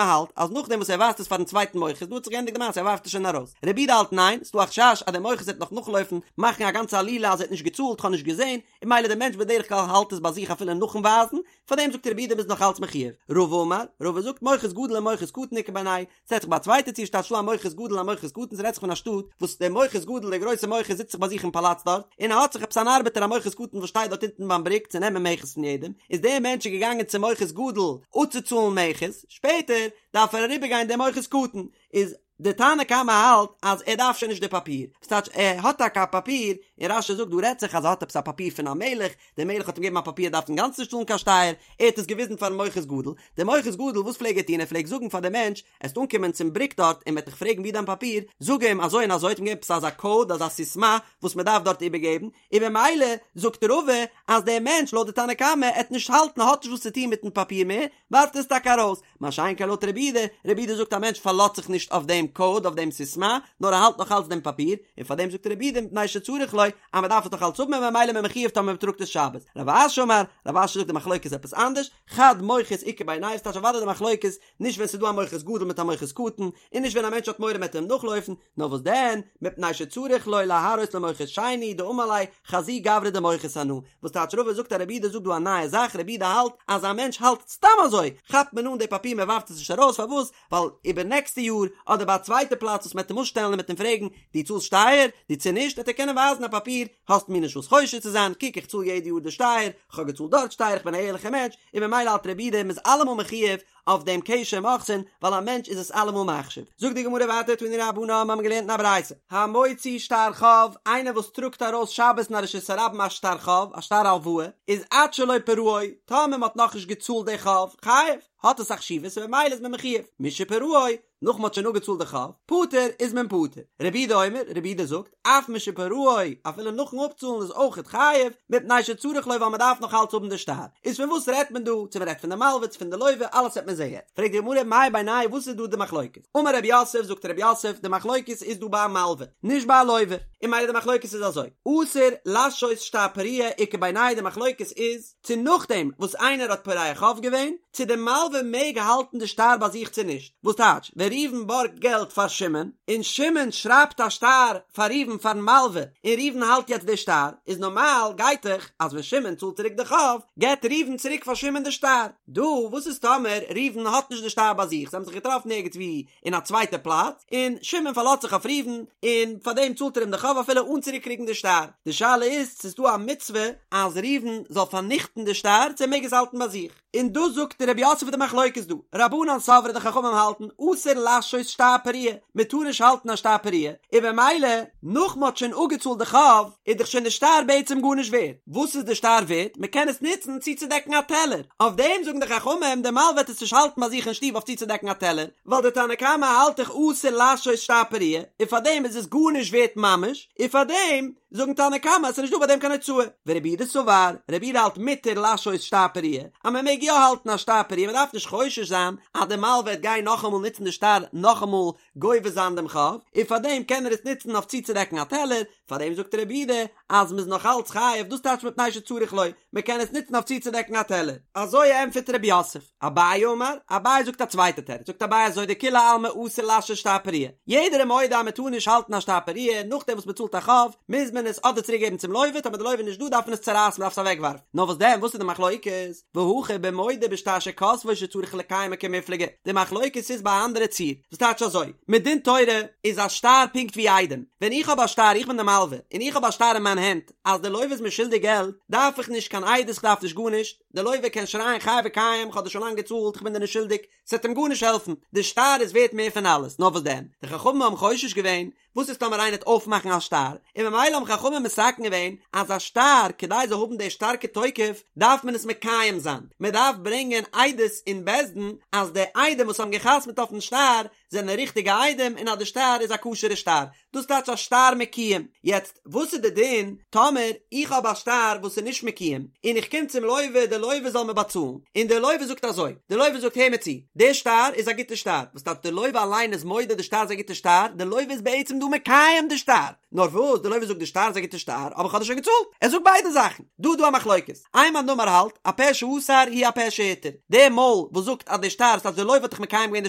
האלט אז נאכדעם וואס ער ווייזט עס פארן צווייטן מוכס דא האט זיך געענדיגט די מעשה ער ווארפט עס שוין ארויס, רבי יהודה האלט ניין, ס'דא א חשש אז דער מוכס העט נאך נאכלויפן מאכן א גאנצע עלילה אז ער האט נישט געצאלט כ'האב נישט געזען, און ממילא דער מענטש בדרך כלל האלט עס ביי זיך אפילו נאכן ווייזן, פארדעם זאגט רבי יהודה מ'איז נאך אלץ מחויב. רבא אמר, רבא זאגט מוכס גדול ומוכס קטן איכא בינייהו, ס'רעדט זיך ביי א צווייטע ציור ס'טייטש דא א מוכס גדול א מוכס קטן ס'רעדט זיך פון א שטאט וואס דער מוכס גדול דער גרויסער מוכס זיצט זיך ביי זיך אין פאלאץ דארט און ער האט זיך עפעס אן ארבעטער א מוכס קטן וואס שטייט דארט אונטן ביים בריק צו נעמען מכס פון יעדעם איז דער מענטש איז געגאנגען צום מוכס גדול אפצוצאלן מכס שפעטער דארף ער אריבערגיין דעם מוכס קטן איז דער תנא קמא האלט אז ער דארף שוין נישט די פאפיר וואס טייטש ער האט טאקע א פאפיר און רש"י זאגט דא רעדט זיך אז ער האט עפעס א פאפיר פון א מלך דער מלך האט אים געגעבן א פאפיר ער דארף אינגאנצן נישט צאלן קיין שטייער, ער האט עס געוויזן פארן מוכס גדול, דער מוכס גדול וואס פלעג ער טון ער פלעגט זאגן פאר דעם מענטש, עסט אנקומען צום בריק דארט און מ'עט דיך פרעגן ווי דיין פאפיר, זאג אים אזוי און אזוי, האט אים געגעבן עפעס אזא קאוד אזא סיסמא וואס מען דארף דארט איבערגעבן, און במילא זאגט רבא אז דער מענטש לויט די תנא קמא עט נישט האלטן האט נישט וואס צו טון מיטן פאפיר מער, ווארפט עס טאקע ארויס, מה שאין כן לויט רבי יהודה, רבי יהודה זאגט א מענטש פארלאזט זיך נישט אויף דעם קאוד אויף דעם סיסמא, נאר ער האלט נאך אלץ דעם פאפיר, און פאר דעם זאגט רבי יהודה מפני שצריך לו, אז מען דארף עס נאך אלץ האבן און ממילא איז מען מחויב טאמער מען טראגט עס שבת. רב אשי אמר, רב אשי זאגט די מחלוקת איז עפעס אנדערש, חד מוכס איכא בינייהו, ס'טייטש אוודאי די מחלוקת נישט ווען ס'איז דא א מוכס גדול מיט א מוכס קטן, און נישט ווען א מענטש האט מורא מ'עט אים נאכלויפן, נאר וואס דען, מפני שצריך לו להראות למוכס שני דאמר ליה חזי גברא דמוכס אנא, וואס טייטש רבא זאגט אז רבי יהודה זאגט דא א נייע זאך, רבי יהודה האלט אז א מענטש האלט סתם אזוי, כאפט מען אן די פאפיר מען ווארפט עס נישט ארויס, פארוואס? ווייל איבער נעקסטע יאר אדער ביי א צווייטע פלאץ וואס מען וועט אים אפשטעלן און מען וועט אים פרעגן דו צאלסט שטייער? דו צו נישט? וועט ער קענען ווייזן א פאפיר, האסט מיר נישט וואס חושד צו זיין, קוק איך צאל יעדע יאר די שטייער, איך האב געצאלט דארט שטייער, איך בין א ערליכער מענטש, און ממילא האלט רבי יהודה מ'איז אלעמאל מחויב אויף דעם קשר מוכסין, ווייל א מענטש איז עס אלעמאל מחשיב. זאגט די גמרא ווייטער תנו רבנן מיר האבן געלערנט אין א ברייתא, המוציא שטר חוב, איינער וואס טראגט ארויס שבת אין א רשות הרבים א שטר חוב, א שטר הלוואה, איז עד שלא פרעו, טאמער מען האט נאכנישט געצאלט די חוב, חייב, האט עס א חשיבות און ממילא איז מען מחויב, משפרעו, נאך מען האט שוין אפגעצאלט די חוב, פטור, איז מען פטור. רבי יהודה אומר, רבי יהודה זאגט, אף משפרעו, אפילו נאכן אפצאלן איז אויכעט חייב, מפני שצריך לו ווייל מען דארף נאך אלץ האבן די שטר. איז פון וואס רעדט מען דא, צו מען רעדט פון די מלווה צו פון די לווה, אלעס וועט מען זעהן יעצט. פרעגט די גמרא מאי בינייהו וואס איז דא די מחלוקת? אמר רב יוסף, זאגט רב יוסף, די מחלוקת איז דא ביי א מלווה, נישט ביי א לווה. און ממילא די מחלוקת איז אזוי, אסור לשהות שטר פריעה איכא בינייהו די מחלוקת איז, צו נאכדעם וואס איינער האט פורע חוב געווען, צו די מלווה מעג האלטן די שטר ביי זיך צו נישט, וואס טייטש, ווען ראובן בארגט געלט פאר שמעון, און שמעון שרייבט א שטר פאר ראובן פארן מלווה, און ראובן האלט יעצט די שטר, איז נארמאל גייט דאך אז ווען שמעון צאלט צוריק די חוב, געבט ראובן צוריק פאר שמעון די שטר. דא, וואס איז טאמער ראובן האט נישט די שטר ביי זיך, זיי האבן זיך געטראפן ערגעץ וואו אין א צווייטע פלאץ, און שמעון פארלאזט זיך אויף ראובן, און פאר דעם צאלט ער אים די חוב אפילו אן צוריק קריגן די שטר. די שאלה איז צו ס'איז דא א מצוה אז ראובן זאל פארניכטן די שטר צו ער מעג עס האלטן ביי זיך. און דאס זאגט רב יוסף די מחלוקת דא, רבנן סברי די חכמים האלטן אסור לשהות שטר פריעה, מען טאר נישט האלטן א שטר פריעה, און במילא נאך מען האט שוין אפגעצאלט די חוב איז דאך שוין די שטר בעצם גארנישט ווערט, וואס איז די שטר ווערט? מען קען עס נוצן צוצודעקן א טעלער, אויף דעם זאגן די חכמים די מלווה וועט עס נישט האלטן ביי זיך אין שטוב אויף צוצודעקן א טעלער, ווייל די תנא קמא האלט דאך אסור לשהות שטר פריעה, און פארדעם איז עס גארנישט ווערט ממש, און פארדעם זאגן תנא קמא אז ס'איז נישט דא ביי דעם קיין הוצאה. ורבי יהודה סבר, רבי יהודה האלט מותר לשהות שטר פריעה, אז מען מעג יא האלטן א שטר פריעה, מען דארף נישט חושש זיין אז די מלווה וועט גיין נאכאמאל נוצן די שטר נאכאמאל גובה זיין דעם חוב, און פארדעם קען ער עס נוצן אויף צוצודעקן א טעלער, פארדעם זאגט רבי יהודה אז מ'איז נאך אלץ חייב, דאס טייטש מפני שצריך לו, מ'קען עס נוצן אויף צוצודעקן א טעלער. אזוי ענטפערט רב יוסף. אביי אמר, אביי זאגט א צווייטע תירוץ, זאגט אביי אזוי דכולי עלמא אסור לשהות שטר פריעה, יעדער איז מודה אז מ'טאר נישט האלטן א שטר פריעה, נאכדעם וואס מ'צאלט א חוב, מוז מען עס אדער צוריק געבן צום לווה, טאמער די לווה איז נישט דא דארף מען עס צורייסן מ'דארף עס אוועקווארפן, נאר וואס דען וואס איז די מחלוקת? והכא במודה בשטר שכתבו שצריך לקיימו קמיפלגי, די מחלוקת איז ביי א אנדערע ציור, וואס טייטש אזוי, מדין תורה איז א שטר פונקט ווי עדים, ווען איך האב א שטר איך בין די מלווה, און איך האב א שטר אין מיין הענט אז די לווה איז מיר שולדיג געלט, דארף איך נישט קיין עדות איך דארף נישט גארנישט, די לווה קען שרייען חי וקיים איך האב דיר שוין לאנג געצאלט איך בין דיר נישט שולדיג, ס'וועט אים גארנישט העלפן, די שטר איז ווערט מער פון אלעס, נאר וואס דען, די חכמים האבן חושש געווען, וואס איז טאמער איינער וועט אויפמאכן א שטר, און ממילא האבן חכמים מתקן געווען אז א שטר כדי זאל האבן די שטארקע תוקף דארף מען עס מקיים זיין, מען דארף ברענגען עדות אין בית דין אז די עדים וואס האבן גע'חתמ'ט אויפן שטר זענען ריכטיגע עדים און אז די שטר איז א כשר'ע שטר, דאס טייטש א שטר מקוים. יעצט וואס איז די דין טאמער איך האב א שטר וואס איז נישט מקוים און איך קום צום לווה די לווה זאל מיר באצאלן און די לווה זאגט אזוי, די לווה זאגט הער מיר צו, די שטר איז א גוטע שטר, וואס טייטש די לווה אליין איז מודה די שטר איז א גוטע שטר, די לווה איז בעצם דא. מקיים די שטר, נאר וואס די לוה זאגט די שטר איז א גוטע שטר אבער איך האב דיר שוין געצאלט, ער זאגט ביידע זאכן, דא איז דא א מחלוקת, איין מאן דאמר האלט הפה שאסר הוא הפה שהתיר, די מויל וואס זאגט אז די שטר ס'טייטש די לוה האט דאך מקיים געווען די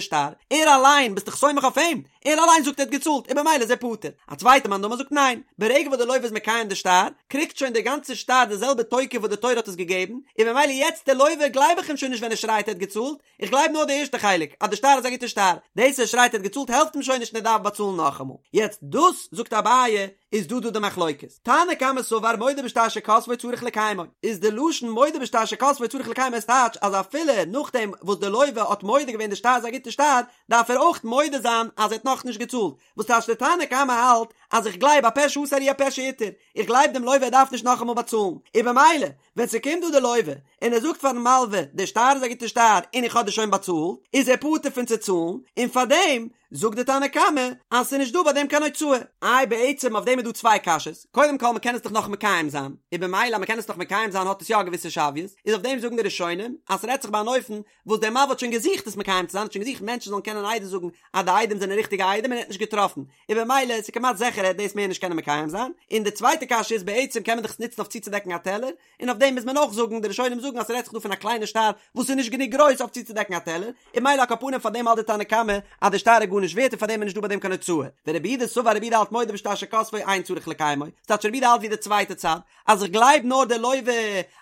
שטר, ער אליין ביסט דאך סומך אויף אים, ער אליין זאגט ער האט געצאלט און במילא איז ער פטור. א צווייטע מאן דאמר זאגט ניין, ברגע וואס די לוה איז מקיים די שטר, קריגט שוין די גאנצע שטר די זעלבע תוקף וואס די תורה האט עס געגעבן, און במילא יעצט די לוה גלייב איך אים שוין נישט ווען ער שרייט ער האט געצאלט, איך גלייב נאר די ערשטע חלק אז די שטר איז א גוטע שטר, דאס ער שרייט ער האט געצאלט העלפט אים שוין נישט און ער דארף באצאלן נאכאמאל. יעצט דאס זאגט אביי איז דא דא די מחלוקת. תנא קמא סבר מודה בשטר שכתבו צריך לקיימו, איז די לשון מודה בשטר שכתבו צריך לקיימו איז טייטש אז אפילו נאכדעם וואס די לוה האט מודה געווען די שטר איז א גוטע שטר, דארף ער אויך מודה זיין אז ער האט נאכנישט געצאלט, וואס טייטש די תנא קמא האלט אז איך גלייב הפה שאסר הוא הפה שהתיר, איך גלייב דעם לוה ער דארף נישט נאכאמאל באצאלן, און במילא ווען ס'קומט דא די לוה און ער זאגט פארן מלווה די שטר איז א גוטע שטר און איך האב דיר שוין באצאלט, איז ער פטור פון צו צאלן, און פארדעם זאגט די תנא קמא אז ס'איז נישט דא ביי דעם קיין הוצאה. איי בעצם אויף דעם איז דא צוויי קשיות, קודם כל מ'קען עס דאך נאך מקיים זיין, און במילא אז מ'קען עס נאך מקיים זיין האט עס יא א געוויסע שוויות, איז אויף דעם זאגן די ראשונים אז ס'רעדט זיך ביי אן אופן וואס דער מלווה האט שוין געזוכט עס מקיים צו זיין, האט שוין געזוכט מענטשן זאלן קענען עדות זאגן אז די עדים זענען ריכטיגע עדים און ער האט נישט געטראפן, און במילא איז כמעט זיכער ער וועט דאס מער נישט קענען מקיים זיין, און די צווייטע קשיא איז בעצם קען מען דאך עס נוצן אויף צוצודעקן א טעלער, און אויף דעם מוז מען אויך זאגן, די ראשונים זאגן אז ס'רעדט זיך דא פון א קליינע שטר וואס איז נישט גענוג גרויס אויף צוצודעקן א טעלער, און במילא על כל פנים פאר דעם האלט די תנא קמא אז די שטר איז גארנישט ווערט און פאר דעם איז נישט דא ביי דעם קיין הוצאה, ורבי יהודה סבר רבי יהודה האלט מודה בשטר שכתבו אין צריך לקיימו, ס'טייטש רבי יהודה האלט ווי די צווייטע צד, אז איך גלייב נאר די לוה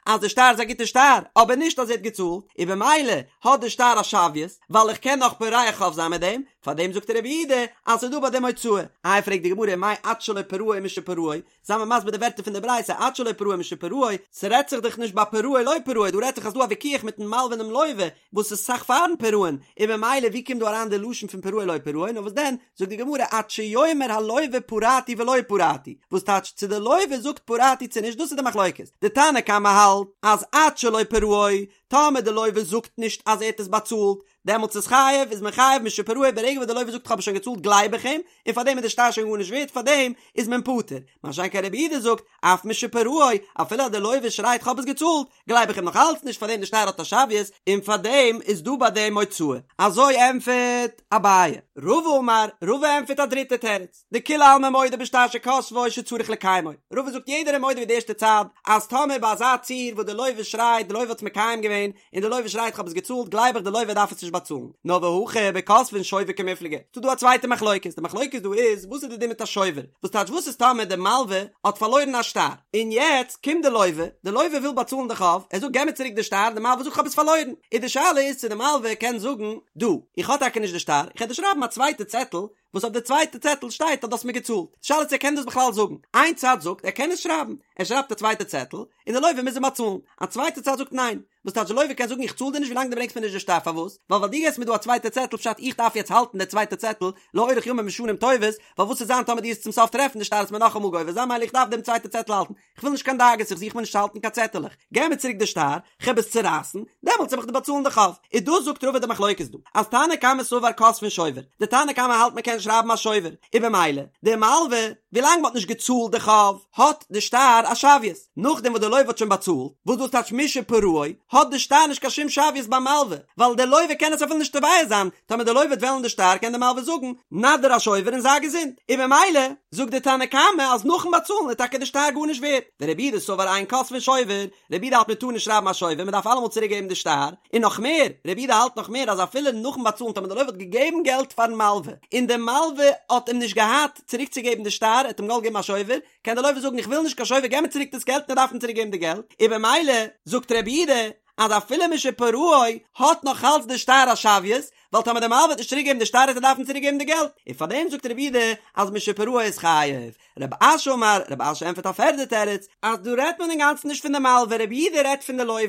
אז די שטר איז א גוטע שטר, אבער נישט אז ער האט געצאלט, און במילא האט די שטר א שוויות, ווייל איך קען נאך פורע חוב זיין מיט דעם, פאר דעם זאגט רבי יהודה אז ס'איז דא ביי דעם הוצאה. איי פרעגט די גמרא מאי עד שלא פרעו משפרעו, זיי מיר מסביר די ווערטער פון די ברייתא עד שלא פרעו משפרעו, ס'רעדט זיך דאך נישט ביי פרעו לא פרעו, דא רעדט זיך אז דא א ויכוח מיטן מלווה און דעם לוה, וואס איז אסאך פארן פירעון, און במילא ווי קומט דא אריין די לשון פון פרעו לא פרעו, נאר וואס דען, זאגט די גמרא עד שיאמר הלוה פרעתי ולא פרעתי, וואס טייטש צו די לוה זאגט פרעתי צו נישט דאס איז די מחלוקת, די תנא קמא האלט אז עד שלא פרעו, טאמער די לוה זאגט נישט אז ער האט עס באצאלט, דעמאלטס איז חייב, איז מען חייב משפרעו ברגע וואס די לוה זאגט כ'האב עס שוין געצאלט גלייב איך אים, און פארדעם איז די שטר שוין גארנישט ווערט פארדעם איז מען פטור, מה שאין כן רבי יהודה זאגט אף משפרעו, אפילו אז די לוה שרייט כ'האב עס געצאלט, גלייב איך אים נאך אלץ נישט פארדעם די שטר האט א שוויות און פארדעם איז דא ביי דעם הוצאה. אזוי ענטפערט אביי. רבא אמר, רבא ענטפערט א דריטע תירוץ, דכולי עלמא מודה בשטר שכתבו שצריך לקיימו, רבא זאגט יעדער איז מודה ווי די ערשטע צד אז טאמער ביי אזא ציור וואס די לוה שרייט די לוה האט עס מקיים געווען און די לוה שרייט כ'האב עס געצאלט גלייב איך די לוה דארף עס נישט באצאלן, נאר והכא בכותבין שובר קמיפלגי, ס'דא דא א צווייטע מחלוקת, די מחלוקת דא איז וואס איז די דין מיט א שובר, וואס טייטש וואס איז טאמער די מלווה האט פארלוירן א שטר, און יעצט קומט די לוה, די לוה וויל באצאלן די חוב, ער זאגט געב מיר צוריק די שטר, די מלווה זאגט כ'האב עס פארלוירן, איז די שאלה איז צו די מלווה קען זאגן דו, איך האב טאקע נישט די שטר, איך וועל דיר שרייבן א צווייטע צעטל, וואס אויף די צווייטע צעטל שטייט אז דו האסט מיר געצאלט, די שאלה איז צו ער קען דאס בכלל זאגן, איין צד זאגט ער קען עס שרייבן, ער שרייבט א צווייטע צעטל, און די לוה מוז אים באצאלן, א צווייטע צד זאגט ניין, וואס טייטש די לוה קען זאגן איך צאל דיר נישט ווילאנג דו ברענגסט מיר נישט די שטר פארוואס? ווייל ווייל דו געסט מיר דא א צווייטע צעטל פשט איך דארף יעצט האלטן די צווייטע צעטל לאורך ימים ושנים טובות, ווייל וואס וועט זיין טאמער דו וועסט צום סוף טרעפן די שטר וועסט מיר נאכאמאל גובה זיין מילא איך דארף דעם צווייטע צעטל האלטן, כ'וויל נישט קיין דאגות איך זוך מיר נישט צו האלטן קיין צעטעלעך, געב מיר צוריק די שטר, כ'העב עס צורייסן, דעמאלטס וועל איך דיר באצאלן די חוב. איז דאס זאגט רבא די מחלוקת דא, אז תנא קמא סבר כותבין שובר, די תנא קמא האלט מ'קען שרייבן א שובר, און במילא, די מלווה, ווילאנג מ'האט נישט געצאלט די חוב, האט די שטר א שוויות, נאכדעם וואס די לוה האט שוין באצאלט, וואס דאס טייטש משפרעו, האט די שטר נישט קיין שום שוויות ביים מלווה, ווייל די לוה קען עס אפילו נישט תובע זיין, טאמער די לוה וועט וועלן די שטר קען די מלווה זאגן, נא דיר א שובר און זיי געזונט, און במילא, זאגט די תנא קמא אז נאכן באצאלן איז טאקע די שטר גארנישט ווערט, ורבי יהודה סבר אין כותבין שובר, רבי יהודה האלט מען טאר נישט שרייבן א שובר, מען דארף אלעמאל צוריק געבן די שטר, און נאך מער, רבי יהודה האלט נאך מער אז אפילו נאכן באצאלן טאמער די לוה האט געגעבן געלט פארן מלווה, און די מלווה האט אים נישט געהאט צוריק צו געבן די שטר, ער האט אים געוואלט געבן א שובר, קען די לוה זאגן איך וויל נישט קיין שובר געב מיר צוריק דאס געלט און ער דארף אים צוריק געבן די געלט, און במילא זאגט רבי יהודה אז אפילו משפרעו האט נאך אלץ די שטר א שוויות, ווייל טאמער די מלווה וועט נישט צוריק געבן די שטר וועט ער דארפן צוריק געבן די געלט, און פאר דעם זאגט רבי יהודה אז משפרעו איז חייב. רב אשי אמר, רב אשי ענטפערט א פערדע תירוץ, אז דא רעדט מען אינגאנצן נישט פון די מלווה, רבי יהודה רעדט פון די לוה,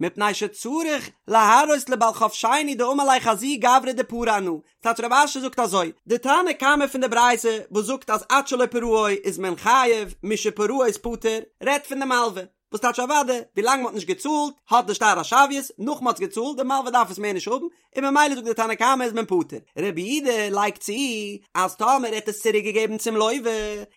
מפני שצריך להראות לבעל חוב שני דאמר ליה חזי גברא דפרע אנא, טייטש רב אשי זאגט אזוי, די תנא קמא פון די ברייתא וואס זאגט אז עד שלא פרעו איז מען חייב, משפרעו איז פטור, רעדט פון די מלווה, וואס טייטש אוודאי, ווילאנג מ'האט נישט געצאלט האט די שטר א שוויות, נאך מ'האט עס געצאלט, די מלווה דארף עס מער נישט האבן, און ממילא זאגט די תנא קמא איז מען פטור. רבי יהודה לייגט צו אז טאמער ער האט עס צוריק געגעבן צום לוה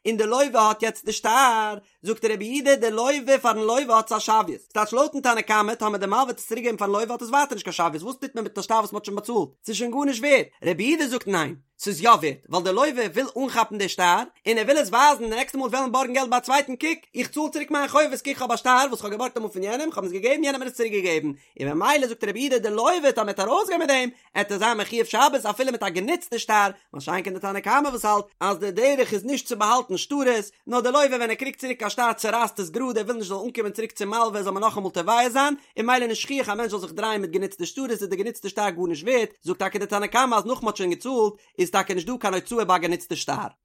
און די לוה האט יעצט די שטר, זאגט רבי יהודה די לוה פארן לוה האט עס א שוויות, ס'טייטש לויטן תנא קמא טאמער די מלווה האט עס צוריק געגעבן פארן לוה האט עס ווייטער נישט קיין שוויות, וואס טוט מען מיט א שטר וואס מ'האט שוין באצאלט? ס'איז שוין גארנישט ווערט. רבי יהודה זאגט ניין, ס'איז יא ווערט, ווייל די לוה וויל אנכאפן די שטר, און ער וויל עס ווייזן די נעקסטע מאל וועלן בארגן געלט ביי א צווייטן, קוק, איך צאל צוריק מיין חובות, קוק כ'האב א שטר וואס כ'האב געבארגט אמאל פון יענעם, כ'האב עס געגעבן, יענער האט מיר עס צוריק געגעבן, און ממילא זאגט רבי יהודה די לוה טאמער ער וועט ארויסגיין מיט דעם, עט ער זיין מחויב שבת אפילו מיט א גענוצטע שטר, מה שאין כן די תנא קמא וואס האלט אז די דרך איז נישט צו באהאלטן שטרות, נאר די לוה ווען ער קריגט צוריק א שטר צורייסט עס גראד ער וויל נישט זאל אנקומען צוריק צום מלווה זאל מען נאכאמאל תובע זיין, און ממילא נישט שכיח א מענטש זאל זיך דרייען מיט גענוצטע שטרות איז די גענוצטע שטר גארנישט ווערט, זאגט טאקע די תנא קמא אז נאך מ'האט שוין געצאלט איז טאקע נישט דא קיין הוצאה ביי א גענוצטע שטר.